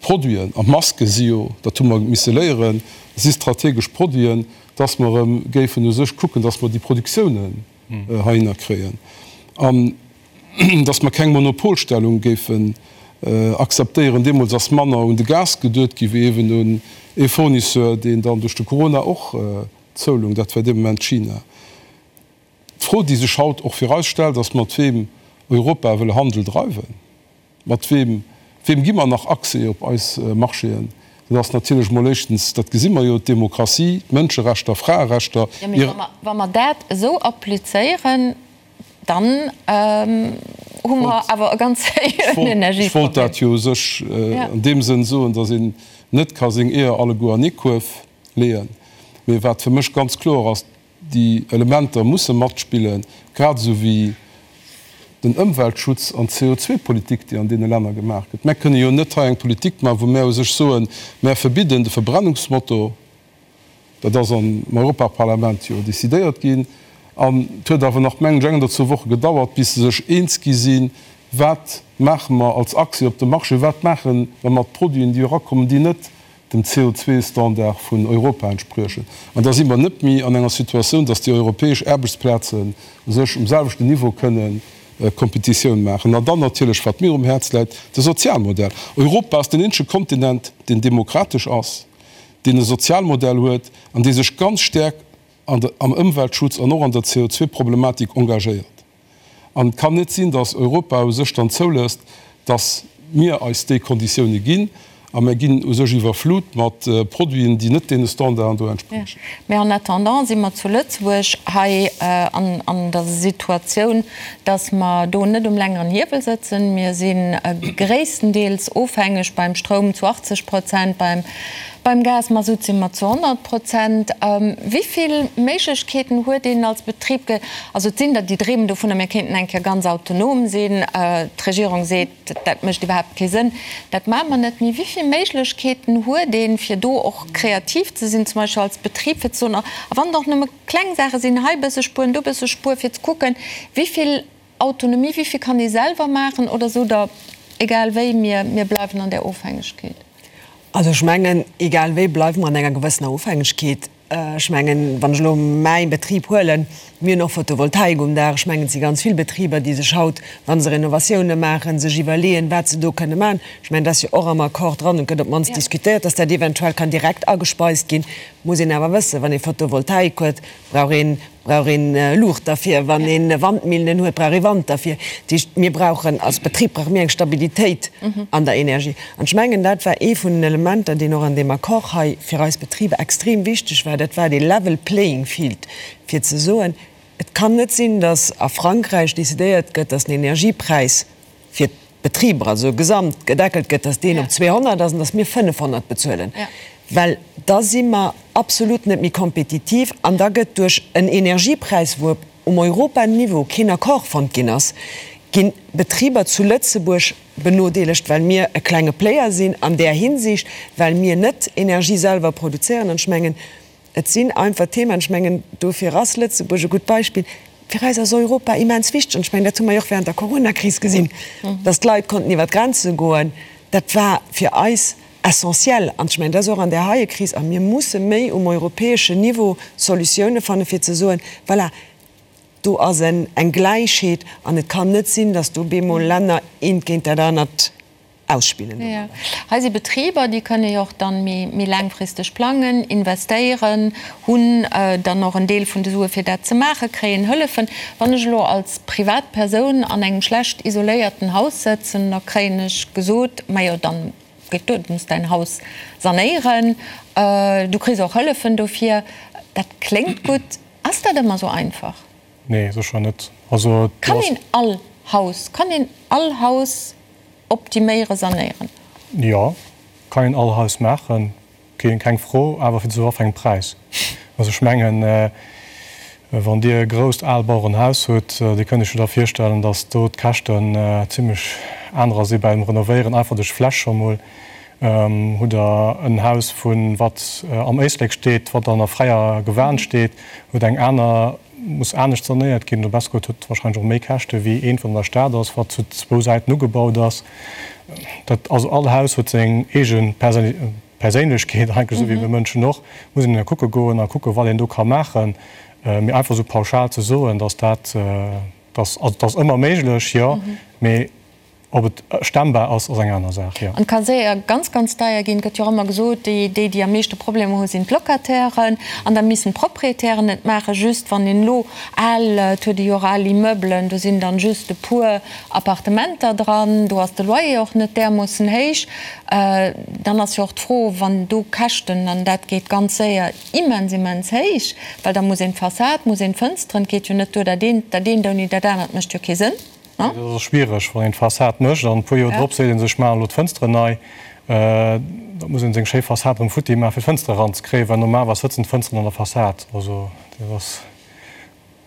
Produiten, an d'Maske si jo, dat hu mer misse léieren, si strategesch Produiten, dass mer erëm géifen u sech kucken, dass mer déi Produktiounen heihinner kréien an dass mer keng Monopolstellung géifen akzeptéieren. Deemools ass manner un de Gas geduet gi wéi eeben un ee Fournisseur, deen dann duerch de Corona och zoulung, dat war dee Moment China. D'Fro, déi sech haut och fir eis stellt, ass, mat weem Europa wëll Handel dreiwen. Mat weem, weem gi mer nach Accès op eis Marchéen? Dat ass natierlech mol éischtens, dat gesi mer jo, d'Demokratie, d'Mënscherechter, Fraerechter. Jo, mee wa mer, wa mer dat esou applizéieren, dann hu mer awer e ganz sérieuxen Energieproblem. Ech wollt dat jo u sech an deem Sënn soen, datt een net ka seng Eeër alleguer an ee Kuerf leeën. Mee wat fir mech ganz kloer ass, Déi Elementer musse matspillen, grad esou wéi den Ëmweltschutz an d'CO2-Politik, déi an deene Länner gemaach gëtt. Mär kënne jo net hei eng Politik maachen, wou mär u sech soen, mär verbidden de Verbrennungsmotor, dat ass am Europaparlament jo decidéiert ginn, an et huet awer nach, mengen ech, eng oder zwou Woche gedauert, bis se sech eens gi sinn, wat maache mer als Accès op de Marché, wat maache mer mat Produiten, déi erakommen, déi net dem CO2-Standard vun Europa entspriechen. An da si mer net méi an enger Situatioun, dass déi europäesch Aarbechtsplazen u sech um selwechten Niveau kënnen Kompetitioun maachen. An dann natierlech, wat mir um Häerz läit, de Sozialmodell. Europa ass den eenzege Kontinent, deen demokratesch ass, deen e Sozialmodell huet an dee sech ganz staark am Ëmweltschutz an och an der CO2-Problematik engagéiert. An et kann net sinn, datt Europa u sech dann zoulësst, datt mir eis déi Konditioune ginn a mir ginn u sech iwwerflut mat Produiten, déi net deene Standarden do entspriechen. Mä en attendant si mer zu Lëtzebuerg hei an der Situatioun, datt mer do net um längeren Hiewel sëtzen. Mir si gréisstendeels ofhängeg beim Stroum zu 80 Prozent, beim Beim Gas, Masutt si mer zu 100 Prozent. Wéi vill Méiglechkeeten huet een als Betrib? Also et sinn der, déi dreemen dovunner, mir kéinten eng Kéier ganz autonom sinn. D'Regierung seet, dat mécht iwwerhaapt kee Sënn, dat maache mer net. Mee wéi vill Méiglechkeeten huet een, fir do och kreativ ze sinn, zum Beispill als Betrib, fir ze soen, a wann et och nëmme kleng Saache sinn, hei e bësse spueren, do e bësse spueren, fir ze kucken, wéi vill Autonomie, wéi vill kann ee selwer maachen oder sot Der, egal wéi, mir bleiwen an där Ofhängegkeet? Also ech mengen, egal wéi bleiwe mer an enger gewëssener Ofhängegkeet. Ech mengen, wann ech elo mäi Betrib huelen, mir hunn och Photovoltaik um Daach. Ech mengen, et si ganz vill Betriber, déi sech haut, wa se Renovatioune maachen, sech iwwerleeën, wat se do kënne maachen. Ech mengen, dat ass jo och am Accord dran und gëtt op d'mannst diskutéiert, dass dat eventuell kann direkt agespeist ginn. Muss een awer wëssen, wann ee Photovoltaik huet, brauch een, brauch een Luucht derfir, wann ee Wandmillen huet, brauch ee Wand derfir. Dat heescht, mir brauchen als Betrib brauche mir eng Stabilitéit an der Energie. An ech mengen, dat war ee vun den Elementer, deen och an deem Accord hei fir eis Betriber extrem wichteg war, dat war dee level playing field, fir ze soen, Et kann net sinn, datt a Frankräich decidéiert gëtt, datt den Energiepräis fir d'Betriber, also gesamt gedeckelt gëtt, datt deen op 200 ass an datt mir 500 bezuelen, well da si mer absolut net méi kompetitiv an da gëtt duerch en Energiepräis, wou um Europaniveau keen Accord fonnt ginn ass, ginn d'Betriber zu Lëtzebuerg benodeelegt, well mir e klenge Player sinn an där Hinsicht, well mir net Energie selwer produzéieren. An ech mengen, Et sinn einfach Themen, ech mengen, dofir ass Lëtzebuerg e gutt Beispill. Fir eis ass Europa immens wichteg an ech mengen, dat hu mer jo och während der Coronakris gesinn, dass d'Leit konnten iwwer d'Grenze goen. Dat war fir eis essentiel an ech mengen, dat ass och an där heie Kris. A mir musse méi um europäeschen Niveau Solutioune fannen, fir ze soen, voilà, do ass eng Gläichheet an et kann net sinn, dass do bemol Länner eent géint dat anert ausspillen domadder. Hei si Betriber, déi kënne jo och dann méi laangfristeg plangen, investéieren, hunn dann och en Deel vun de Sue fir dat ze maachen, kréien Hëllefen. Wann ech elo als Privatpersoun an engem schlecht isoléierten Haus sëtzen, da kréien ech gesot, majo dann geet duer, du muss däin Haus sanéieren, du kriss och Hëllefen dofir. Dat kléngt gutt. Ass dat ëmmer esou einfach? Nee, sécher net. Also Kann een all Haus, kann een all Haus Optiméieren, sanéieren. Jo, kann een all Haus maachen, keng Fro, awer fir zu wat fir engem Präis? Also ech mengen, wann Dir e grousst Aalbauerenhaus hutt, Dir kënnt Iech jo da virstellen, datt do d'Käschten zimlech anerer si beim Renovéieren, einfach duerch d'Fläch scho mol. Hutt Der en Haus vu wat am Éislek steet, wat an der fräier Gewan steet, huet eng aner muss anescht sanéiert ginn, oder besser gesot huet wahrscheinlech och méi Käschte wéi eent, wat an der Stad ass, wat zu zwou Säiten ugebaut ass. Dat, also all Haus huet seng eege Perséinlechkeet eigentlech, esou wéi mir Mënschen och. Muss een da kucke goen a kucke wat een do ka maachen. Mee einfach esou pauschal ze soen, datt dat, datt, also et ass ëmmer méiglech, jo, mee Ob et stemmbar ass, ass eng aner Saach, jo. An et ka séier ganz, ganz deier ginn. Et gëtt jo och ëmmer gesot, déi, déi am meeschte Problemer hu sinn d'Locatairen. An da missen d'Proprietären et maachen. Just wann een elo al, et huet ee jo och al Immeublen, do sinn dann just e puer Appartementer dran, do ass de Loyer och net därmoossen héich. Dann ass jo och d'Fro, wann do Käschten, an dat geet ganz séier immens, immens héich, well da muss een d'Fassad, muss een d'Fënsteren, et geet jo net duer, dat eent, dat eent ouni dat anert mécht jo kee Sënn. Dat ass schwiereg, wann een d'Fassad mécht an e puer Joer drop seet ee sech, ech maachen elo d'Fënsteren nei. Da muss ee seng schéi Fassad erëm futti maachen, fir d'Fënstere eranzekréien, well normalerweis sëtzen d'Fënsteren an der Fassad. Also dat ass,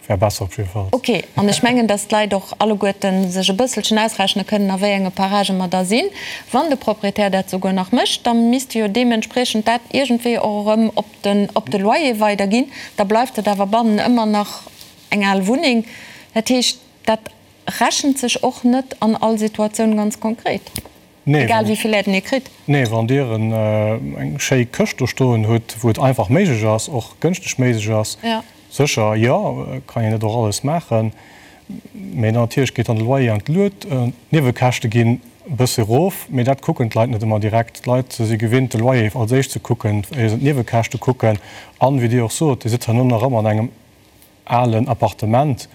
wär besser op jidde Fall. Ok, an ech mengen, datt d'Leit och alleguerte sech e bësselchen ausrechne kënnen, a wéi enge Paragë mer da sinn. Wann de Proprietär dat souguer nach mécht, da misst e jo deementspriechend dat iergendwéi och erëm op den, op de Loyer weiderginn. Da bleift et awer bannen ëmmer nach eng al Wunneng. Dat heescht, Dat rechent sech och net an all Situatioun ganz konkret, egal wéi vill Aiden ee kritt. Nee, wann Dir eng schéi Këscht do stoen hutt, wou et einfach méiglech ass, och gënschteg méiglech ass, sécher, jo, kann een dat och alles maachen. Mee natierlech geet dann de Loyer an d'Luet, d'Niewekäschte ginn e bësse erof, mee dat kucken d'Leit net ëmmer direkt. D'Leit si gewinnt, de Loyer als éischt ze kucken, éier se d'Niewekäschte kucken. An, wéi Dir och sot, Dir sëtzt herno nach ëmmer an engem alen Appartement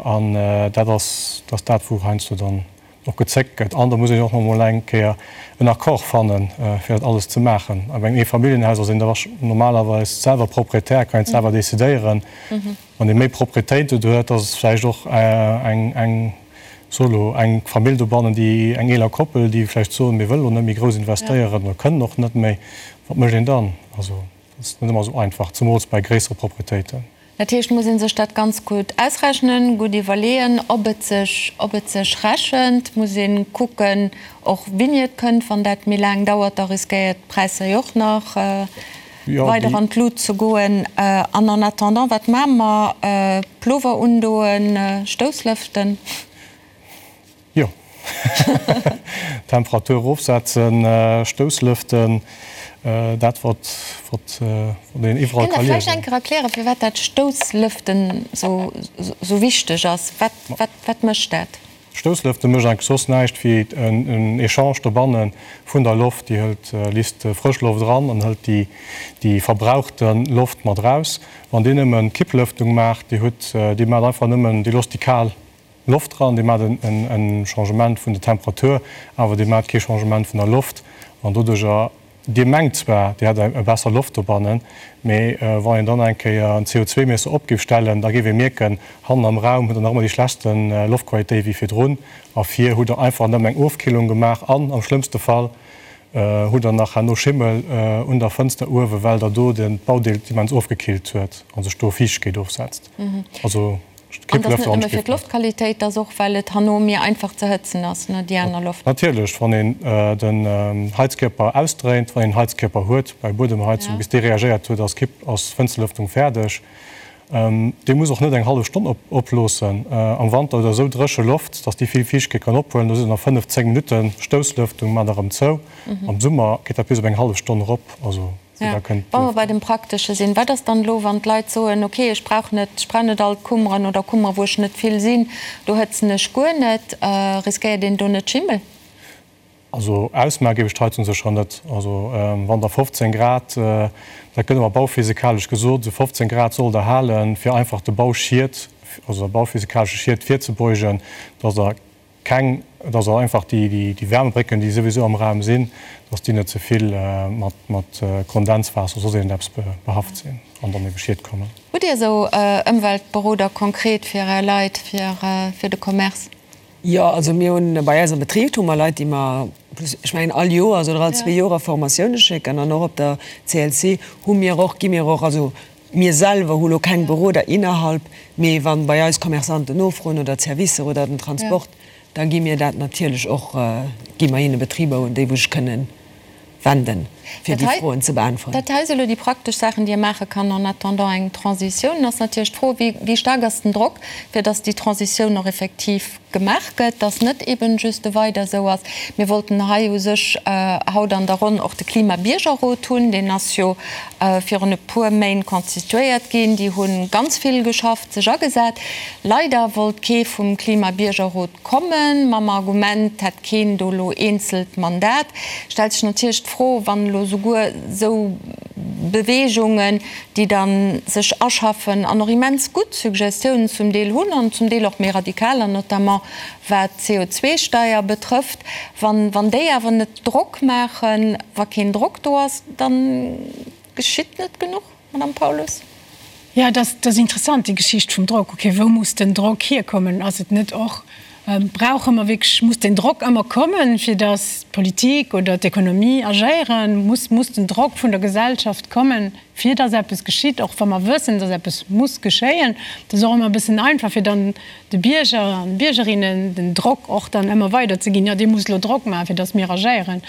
an dat ass dat ass dat wou heiansdo dann och gezéckt gëtt. An da muss een och nach emol eng Kéier en Accord fannen, fir dat alles ze maachen. A bei engem Eefamilljenhaus ass een da normalerweis selwer Proprietär, kann een et selwer decidéieren. Wann ee méi Proprietéiten huet, ass et vläicht och eng eng solo eng Famill dobannen, déi eng eeler Koppel, déi vläicht soen, mir wëllen elo net méi grouss investéieren oder kënnen och net méi. Wat mécht een dann? Also. Dat ass net ëmmer esou einfach, zemools bei gréissere Proprietéiten. Dat heescht, muss ee sech dat ganz gutt ausrechnen, gutt iwwerleeën, ob et sech, ob et sech rechent. Muss ee kucken och wéini et kënnt. Wann dat méi laang dauert, da riskéiert d'Präisser jo och nach weider an d'Lut ze goen. An en attendant, wat maache mer? Plover undoen, Stousslëften? Jo. Temperatur erofsetzen, Stousslëften, dat wat wat een iwwerall ka liesen. Kënnt Der vläicht eng Kéier erklären, firwat dat Stousslëften sou wichteg ass? Wat wat wat mécht dat? Stousslëfte mécht eigentlech soss näischt wéi en Echange dobanne vun der Loft. Déi hëlt, lisst frësch Loft eran an hëlt déi, déi verbrauchte Loft mat eraus. Wann Dir nëmmen Kipplëftung maacht, Dir hutt, Dir maacht einfach nëmmen, Dir loosst déi kal Loft eran, Dir maacht en Changement vun der Temperatur, awer Dir maacht kee Changement vun der Loft an doduercher Dir mengt zwar, Dir hätt eng besser Loft dobannen, mee wann een dann eng Kéier en CO2-Miesser op géif stellen, da géif ee mierken, hannen am Raum hutt Der nach ëmmer déi schlechtste Loftqualitéit wéi virdrun a vir hutt Der einfach nëmmen eng Ofkillung gemaach an am schlëmmste Fall hutt Der nach herno Schimmel un der Fënster uewen, well Der do den d'Baudeel immens ofgekillt huet a sech do Fiichtegkeet ofsetzt. Also. An et ass net nëmme fir d'Loftqualitéit, et ass och, well et herno méi einfach ze hëtzen ass, ne, déi aner Loft. Natierlech, wann een den Heizkierper ausdréint, wann een Heizkierper huet bei Buedemheizung, bis dee reagéiert huet, ass d'Kipp, ass d'Fënsterlëftung fäerdeg. Dee muss och net eng hallef Stonn oploossen. Am Wanter huet der esou dréche Loft, dass déi vill Fiichtegkeet kann ophuelen. Do sidd der no 5, 10 Minutten Stousslëftung, maacht der erëm zou. Am Summer geet dat bis op eng hallef Stonn erop. Also. Ja, wa mer bei dem Praktesche sinn, wat ass dann elo, wann d'Leit soen, okay, ech brauch net, ech brauch net all d'Kummeren oder Kummere wou ech net vill sinn, do hëtzen ech guer net, riskéiert een do net Schimmel? Also ausmaache géif ech d'Heizung sécher net. Also wann der 15 Grad, dat gëtt ëmmer bauphysikalesch gesot, esou 15 Grad sollt der halen, fir einfach de Bauschied, also der bauphysikalesche Schied virzebeugen, dass der Keng, et ass einfach déi Wärmebrécken, déi souwisou am Raum sinn, dass déi net ze vill mat Kondenswaasser oder soss iergendeppes behaft sinn an dann ebe Schied kommen. Hutt Dir esou Ëmweltberoder konkret fir Är Leit, fir de Commerce? Jo, also mir hunn bei eis am Betrib hu mer Leit, déi mer, ech mengen all Joers oder all zwee Joer a Formatioune schécken an och op der CLC hu mir och, gi mir och, also Mir selwer hu lo keng Beroder innerhalb, mee wann bei eis Commerçanten nofroen oder d'Servicer oder den Transport, da gi mir dat natierlech och, gi mer hinne Betriber un déi wou sech kënnen wenden, fir déi Froen ze beäntweren. Dat hei si lo déi praktesch Saachen, déi ee maache kann en attendant eng Transitioun. Ass natierlech d'Fro, wéi staark ass den Drock, fir datt déi Transitioun och effektiv gemaach gëtt, dass net eben just e Weider esou ass. Mir wollten hei u sech haut an der Ronn och de Klima-Biergerrot hunn. Deen ass jo virun e puer Méint constituéiert ginn. Déi hu ganz vill geschafft, sech agesat. Leider wollt kee vum Klima-Biergerrot kommen, mam Argument, 't hätt keen do elo eenzelt Mandat. Stellt sech natierlech d'Fro, wann elo souguer esou Beweegungen, déi da sech aschaffen an och immens gutt Suggestiounen zum Deel hunn an zum Deel och méi radikaler, notamment wat d'CO2-Steier betrëfft, wann, wann déi awer net Drock maachen, wa keen Drock do ass, da geschitt net genuch, Madame Paulus? Jo, et ass, et ass interessant, déi Geschicht vum Drock. Okay, wou muss den Drock hierkommen? Ass et net och, brauche mer wierklech, muss den Drock ëmmer kommen, fir datt d'Politik oder d'Ekonomie agéieren? Muss, muss den Drock vun der Gesellschaft kommen, fir dass eppes geschitt, och wa mer wëssen, dass eppes muss geschéien. Et ass och ëmmer e bëssen einfach, fir dann de Bierger an Biergerinnen den Drock och dann ëmmer weider ze ginn, jo Dir musst elo Drock maachen, fir dass mir agéieren.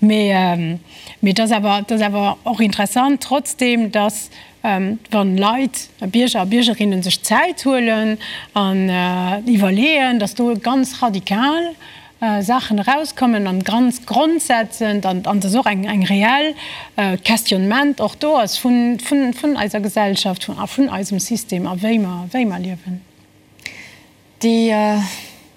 Mee, mee et ass awer, et ass awer och interessant trotzdeem, dass wann Leit, Bierger a Biergerinnen sech Zäit huelen an iwwerleeën, dass do ganz radikal Saachen erauskommen an ganz grondsetzend an an dass och eng eng reell Questionnement och do ass vun vun vun eiser Gesellschaft a vun eisem System a wéi mer wéi mer liewen. Déi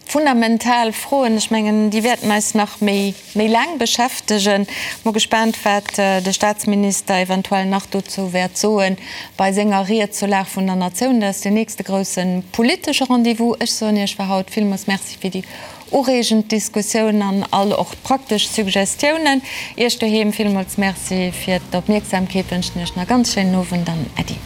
fundamental Froen, ech mengen, déi wäerten eis nach méi méi laang beschäftegen. Mol gespaant, wat de Staatsminister eventuell nach dozou wäert soen bei senger Ried zur Lag vun der Natioun. Dat ass deen nächste grousse politesche Rendez-vous. Ech soen Iech fir haut villmools Merci fir déi ureegend Diskussioun an all och d'praktesch Suggestiounen. Iech doheem villmools Merci fir d'Opmierksamkeet, wënschen Iech nach e ganz schéinen Owend an Äddi.